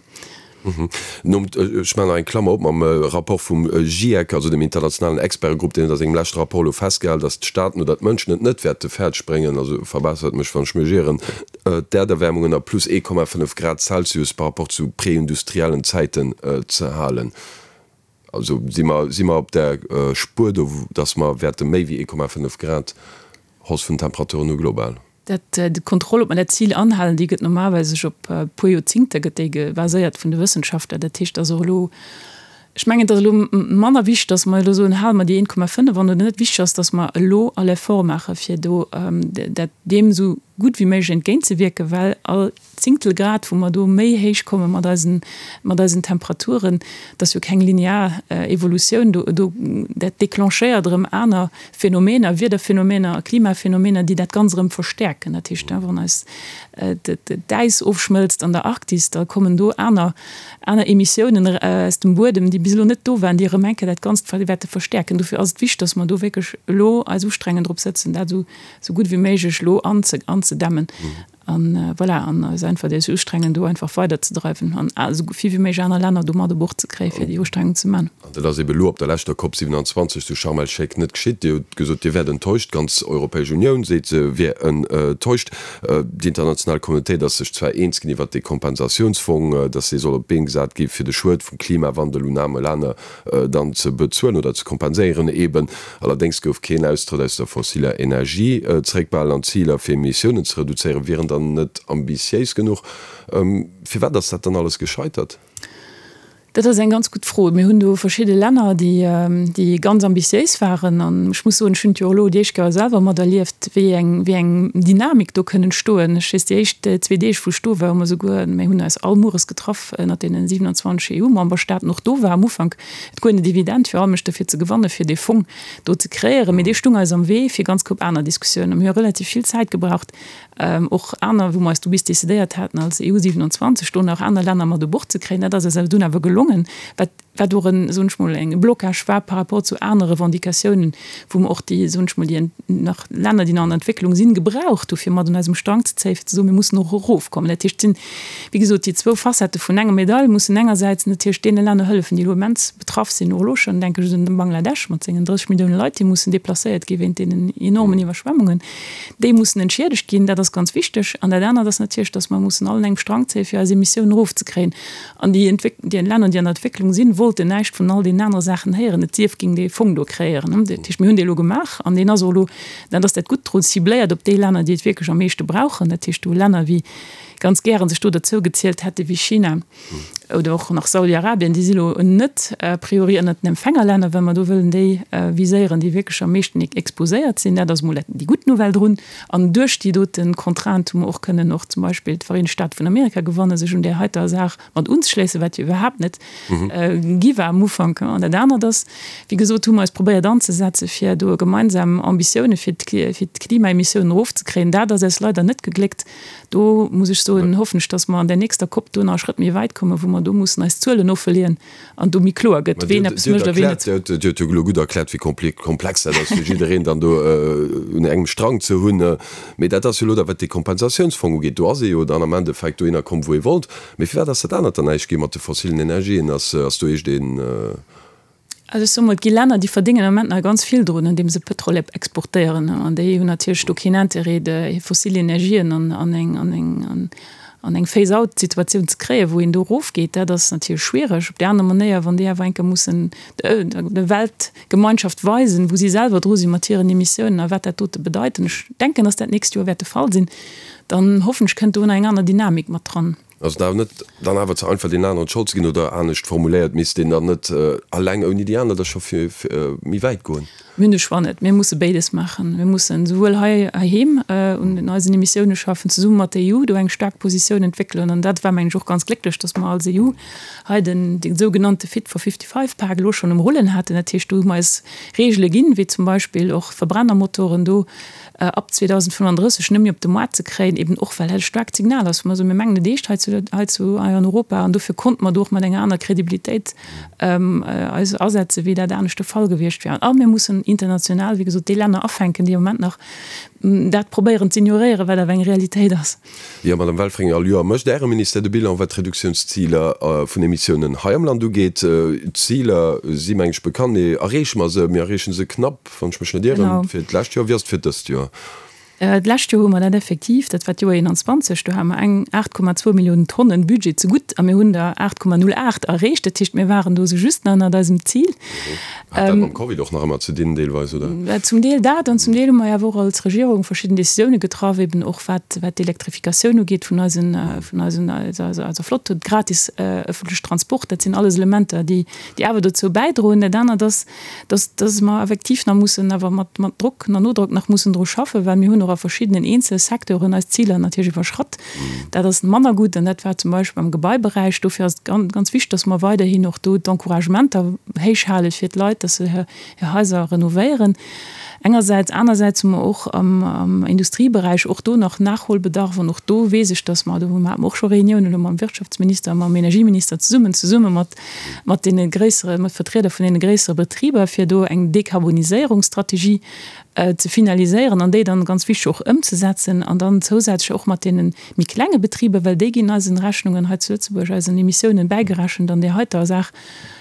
Nom, ech maachen nach eng Klammer op, mam Rapport vum GIEC, also dem internationalen Expertegrupp, deen huet a sengem leschte Rapport elo festgehal, datt d'Staaten oder d'Mënschen et net wäerte fäerdeg bréngen, also verbessert mech wann ech mech ieren, d'Äerderwärmung ënner plus 1,5 Grad Celsius par rapport zu preindustriellen Zäiten ze halen. Also si mer, si mer op der Spuer do, datt mer wäerte méi wéi 1,5 Grad Hausse vun den Temperaturen hu global? Dat, d'Kontroll, ob mer dat Zil anhalen, déi gëtt normalerweis sech op e puer Joerzingte gëtt déi baséiert vun de Wëssenschaftler. Dat heescht, dass och elo, ech mengen, et ass elo manner wichteg, dass mer elo soen, hale mer déi 1,5 an oder net. Wichteg ass, dass mer elo all Effort maache fir do dat deem esou gutt wéi méiglech entgéintzewierken, well all Zéngtel Grad, wou mer do méi héich komme mat eisen, mat eisen Temperaturen, dat ass jo keng linear Evolutioun do, do, dat déclenchéiert erëm aner Phänomener, Wiederphänomener a Klimaphänomener, déi dat Ganzt erëm verstäerken. Dat heescht, wann eis d'Äis ofschmëlzt an der Arktis, da kommen do aner, aner Emissiounen aus dem Buedem, déi bis elo net do waren, déi erëm eng Kéier dat Ganzt wäerte verstäerken. Dofir ass et wichteg, dass mer do wierklech elo eis ustrengen, drop sëtzen, dat esou, esou gutt wéi méiglech elo anzedämmen. An voilà, an eis einfach déi Ustrengen do einfach weiderzedreiwen an esou vill wéi méiglech aner Länner do mat u Bord ze kréien, fir déi Ustrengung ze man. An dat ass ebe elo op der leschter Cop 27 zu Sharm el-Sheikh net geschitt. Dir hutt gesot, Dir wäert enttäuscht. D'ganz Europäesch Unioun seet, se wier enttäuscht. Déi international Communautéit ass sech zwar eens ginn iwwert dee Kompensatiounsfong, datt dee soll op d'Been gesat gi fir de Schued vum Klimawandel un aarme Länner dann ze bezuelen oder ze kompenséieren eben. Allerdéngs gouf keen Austrëtt aus der fossiller Energie zeréckbehalen an d'Ziler fir Emissiounen ze reduzéieren wieren dann net ambitiéis genuch. Firwat ass dat dann alles gescheitert? Dat ass eng ganz gutt Fro. Mir hunn do verschidde Länner, déi ganz ambitiéis waren. An ech muss soen, ech hunn et jo och elo déi éischt Kéier selwer materlieft, wéi eng, wéi eng Dynamik do kënn entstoen. Ech weess, déi éischt zwee Deeg, wou ech do war, hu mer souguer, mir hunn eis all mueres getraff ënnert deene 27 EU-Memberstaaten. Och do war am Ufank et guer net evident, fir all Mënsch dofir ze gewannen, fir dee Fong do ze kreéieren. Mee dee stung eis am Wee fir ganz Koup aner Diskussiounen. Mir hu relativ vill Zäit gebraucht, och aner, wou mer eis du bis decidéiert haten als EU 27, do nach aner Länner mat u Bord ze kréien. Dat ass eis awer dunn awer gelongen, wat, wat och en, soen ech mol, e Blocage war par rapport zu anere Revendicatiounen, wou mer och déi, soen ech mol, déi nach Länner, déi nach an der Entwécklung sinn, gebraucht hu fir mat un eisem Strang ze zéien, fir ze soen, mir mussen och erofkommen. Dat heescht, et sinn, wéi gesot, déi zwou Facettë vun enger Medail mussen engersäits natierlech deene Länner hëllefen, déi elo immens betraff sinn, och elo schonn, denke ech un de Bangladesch mat sengen 30 Millioune Leit, déi mussen deplacéiert gi wéint deenen enormen Iwwerschwemmungen, déi mussen entschiedegt ginn, dat ass ganz wichteg. An dat anert ass natierlech, datt mer mussen all un engem Strang zéien, fir eis Emissiounen erofzekréien. An déi déi Länner, déi an der Entwécklung sinn, wollten näischt vun all deenen anere Saachen héieren, et sief géing dee Fong do kreéieren. Dat heescht, mir hunn dee elo gemaach an deen ass och elo, dat ass dat Gutt drun, cibléiert op déi Länner, déi et wierklech am meeschte brauchen. Dat heescht, do Länner wéi ganz gären sech do derzou gezielt hätte wéi China. Oder och nach Saudi-Arabien, déi si lo net a priori ënnert den Empfängerlänner, well mer do wëllen déi viséieren, déi wierklech am meeschten exposéiert sinn. Dat ass emol déi gutt Nouvelle drun. An duerch déi dote Contrainte hu mer och kënnen och zum Beispill d'Vereenegt Staate vun Amerika gewannen, sech un där heiter Saach mat unzeschléissen, wat jo iwwerhaapt net gi war am Ufank. An dat anert ass, wéi gesot, hu mer eis probéiert anzesetzen, fir do gemeinsam Ambitioune fir d'Klimaemissiounen erofzekréien. Dat ass eis leider net gegléckt. Do muss ech soen, hoffen ech, dass mer an där nächster Cop do nach e Schrëtt méi wäit kommen, wou mer do mussen eis Zuelen offeleeën an do méi kloer gëtt, ween eppes mécht a ween net. Dir huet jo elo gutt erkläert, wéi komplex dat ass, fir jiddereen dann do un engem Strang ze hunn. Mee dat ass jo elo da, wat dee Kompensatiounsfong ugeet, do ass ee jo dann am Endeffekt dohinner komm, wou ee wollt. Mee firwat ass dat anert dann näischt gi mat de fossilen Energien? Ass do iergend een. Also ech soe mol, et gi Länner, déi verdéngen am Moment nach ganz vill drun, andeem se Pëtrol exportéieren. An déi hunn natierlech do keen Intérêt, hir fossil Energien an eng, an eng, an eng Phase-out-Situatioun ze kréien, wou een do erofgeet. Dat ass natierlech schwiereg. Op där aner Manéier, wann déi awer eng Kéier mussen der Weltgemeinschaft weisen, wou si selwer dru si mat hiren Emissiounen a wat dat dote bedeit, an ech denken, dass dat d'nächst Joer wäert de Fall sinn, dann hoffen ech, kënnt do nach eng aner Dynamik mat dran. Ass et awer net dann awer ze einfach, deenen aneren d'Schold ze ginn? Oder anescht formuléiert, misst een dann net alleng ouni déi aner da scho méi wäit goen? Mir hunn de Choix net. Mir musse béides maachen. Mir mussen esouwuel hei heiheem un eisen Emissioune schaffen, zesumme mat der EU do eng staark Positioun entwéckelen. An dat war, mengen ech, och ganz glécklech, datt mer als EU hei den dee sougenannte Fit for 55 Pak elo schonn um Rullen haten. Dat heescht, do hu mer eis Reegele ginn, wéi zum Beispill och Verbrennermotoren do ab 2035 net méi op de Moart ze kréien, eben och well dat e staarkt Signal ass, wou mer soen, mir mengen et eescht hei zu, hei zu, hei an Europa an dofir konnte mer do och mat enger aner Kredibilitéit eis asetzen, wéi dat anescht de Fall gewiescht wär. A mir mussen international, wéi gesot, déi Länner afänken, déi am Moment nach dat probéieren z'ignoréieren, wat awer eng Realitéit ass. Jo, Madame Welfringer, all Joer mécht Äre Ministère de Bilan, wat d'Reduktiounsziler vun Emissiounen hei am Land ugeet. D'Ziler si, meng ech, bekannt. Mee erreeche mer se? Mir erreeche se knapp, wann ech mech net ieren, fir d'lescht Joer. Wéi ass et fir dëst Joer? D'lescht Joer hu mer dat effektiv, dat war d'Joer 21, do hate mer eng 8,2 Milliounen Tonnen Budget zegutt a mir hunn der 8,08 erreecht. Dat heescht, mir waren do esou just nach ënnert eisem Zil. Hat dat mam Covid och nach ëmmer ze dinn deelweis, oder? Zum Deel dat an zum Deel hu mer jo awer och als Regierung verschidden Décisioune getraff, eben och wat wat d'Elektrifikatioun ugeet vun eisen, vun eisen, eiser Flott, de gratis ëffentlech Transport. Dat sinn alles Elementer, déi déi awer dozou bäidroen. Dat anert ass, dass dass mer effektiv nach mussen awer mat mat Drock, nach Nodrock nach mussen dru schaffen, well mir hunn och a verschiddenen eenzele Secteuren eis Ziler natierlech iwwerschratt. Dat ass manner gutt an dat war zum Beispill am Gebaiberäich. Dofir ass et ganz wichteg, dass mer weiderhin och do d'Encouragementer héich hale fir d'Leit, dass se hir Haiser renovéieren engersäits. Anersäits hu mer och am Industrieberäich och do nach Nachholbedarf an och do weess ech, dass mer, do hate mer och scho Reuniounen elo mam Wirtschaftsminister a mam Energieminister zesummen, zesumme mat mat deene gréissere, mat Vertrieder vun deene gréissere Betriber, fir do eng Dekarboniséierungsstrategie ze finaliséieren an déi dann, ganz wichteg, och ëmzesetzen an dann zousätzlech och mat deene méi klenge Betriber, well déi ginn eisen Rechnungen hei zu Lëtzebuerg, eisen Emissiounen bäigerechent an där heiter Saach,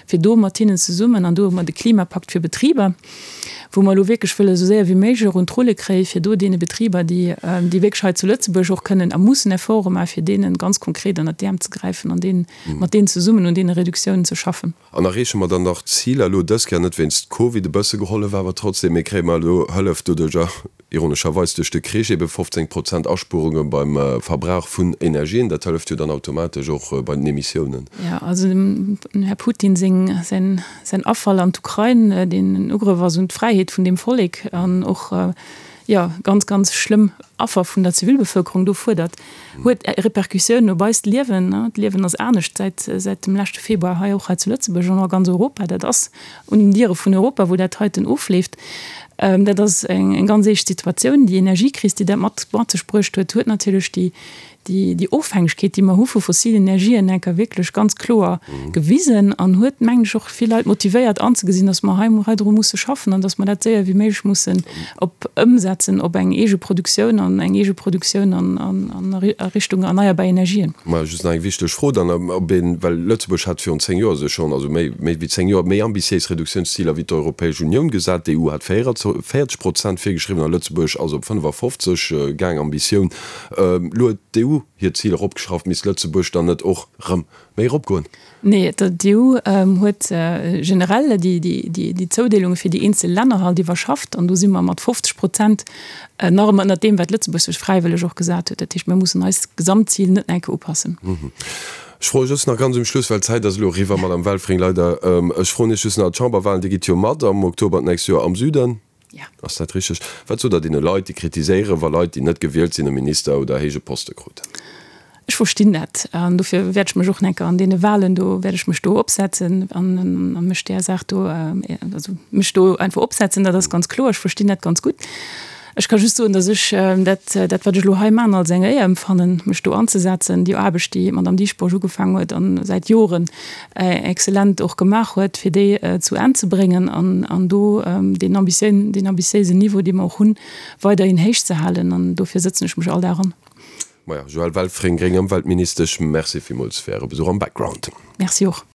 fir do mat hinnen zesummen, an do hu mer de Klimapakt fir Betriber, wou mer elo wierklech wëlle esou séier wéi méiglech och un d'Rulle kréien, fir do deene Betriber, déi déi wierklech hei zu Lëtzebuerg och kënnen a mussen Efforte maachen, fir deene ganz konkret ënnert d'Äerm ze gräifen an deenen, mat deenen zesummen un deene Reduktiounen ze schaffen. An erreeche mer dann nach d'Ziler elo dës Kéier net wéinst Covid, e bësse gehollef awer trotzdem, mee kréie mer elo Hëllef doduercher, ironescherweis duerch de Krich, ebe 15 Prozent Aspuerunge beim Verbrauch vun Energien, dat hëlleft jo dann automatesch och bei den Emissiounen. Jo, also dem Här Putin seng, säin, säin Afall an d'Ukrain, deen en Ugrëff ass un d'Fräiheet vun deem Vollek an och, jo, ganz, ganz schlëmm Affer vun der Zivilbevölkerung do fuerdert, huet Repercussiounen op eist Liewen. D'Liewen ass anescht säit, säit dem leschte Februar hei, och hei zu Lëtzebuerg an och a ganz Europa. Dat ass un den Diere vun Europa, wou dat heiten ofleeft. Dat ass eng, eng ganz eescht Situatioun. Déi Energiekris, déi dat mat, mat sech bruecht huet, huet natierlech déi, déi, déi Ofhängegkeet, déi mer hu vu fossilen Energien, enker wierklech ganz kloer gewisen an huet, mengen ech, och vill Leit motivéiert anzegesinn, dass mer hei, hei dru musse schaffen an dass mer dat séier wéi méiglech mussen op ëmsetzen op eng eege Produktioun an eng eege Produktioun an, an, an a Richtung erneierbar Energien. Mä just nach eng wichteg Fro dann, ob een, well Lëtzebuerg hat virun 10 Joer sech schonn, also méi, méi wéi 10 Joer, méi ambitiéis Reduktiounsziler wéi d'Europäesch Unioun gesat. D'EU hat 44 Prozent virgeschriwwen a Lëtzebuerg ass op 55 gaang, Ambitioun. Elo huet d'EU hir Zil eropgeschrauft. Misst Lëtzebuerg dann net och rëm méi eropgoen? Nee, d'EU huet generell déi Zoudeelunge fir déi eenzel Länner halt iwwerschafft an do si mer mat 50 Prozent nach ëmmer ënnert deem, wat Lëtzebuerg sech fräiwëlleg och gesat huet. Dat heescht, mir mussen eist Gesamtzil net enke upassen. Ech froe just nach ganz um Schluss, well d'Zäit ass elo eriwwer, Madame Welfring, leider. Ech froen Iech just nach, D'Chamberwahlen, Dir gitt jo mat am Oktober d'nächst Joer am Süden. Ja. Ass dat richteg? Wat sot Der deene Leit, déi kritiséieren, wa Leit, déi net gewielt sinn, e Minister oder héije Poste kruten? Ech verstinn dat an dofir wäert ech mech och enker an deene Wahlen do, wäert ech mech do opsetzen an a mech där Saach do, also mech do einfach opsetzen, dat ass ganz kloer. Ech verstinn dat ganz gutt. Ech ka just soen, datt ech dat, dat wat ech elo hei maachen, als eng Éier empfannen, mech do anzesetzen, déi Aarbecht, déi d'Madame Dieschbourg ugefaangen huet a säit Joren excellent och gemaach huet, fir déi zu Enn ze bréngen an an do deen ambitiéisen, deen ambitiéisen Niveau, dee mer och hunn, weiderhin héich ze halen. An dofir sëtzen ech mech all Dag an. Maja, Joëlle Welfring, gréng Ëmweltministesch, Merci villmools fir Äre Besuch am Background. Merci och.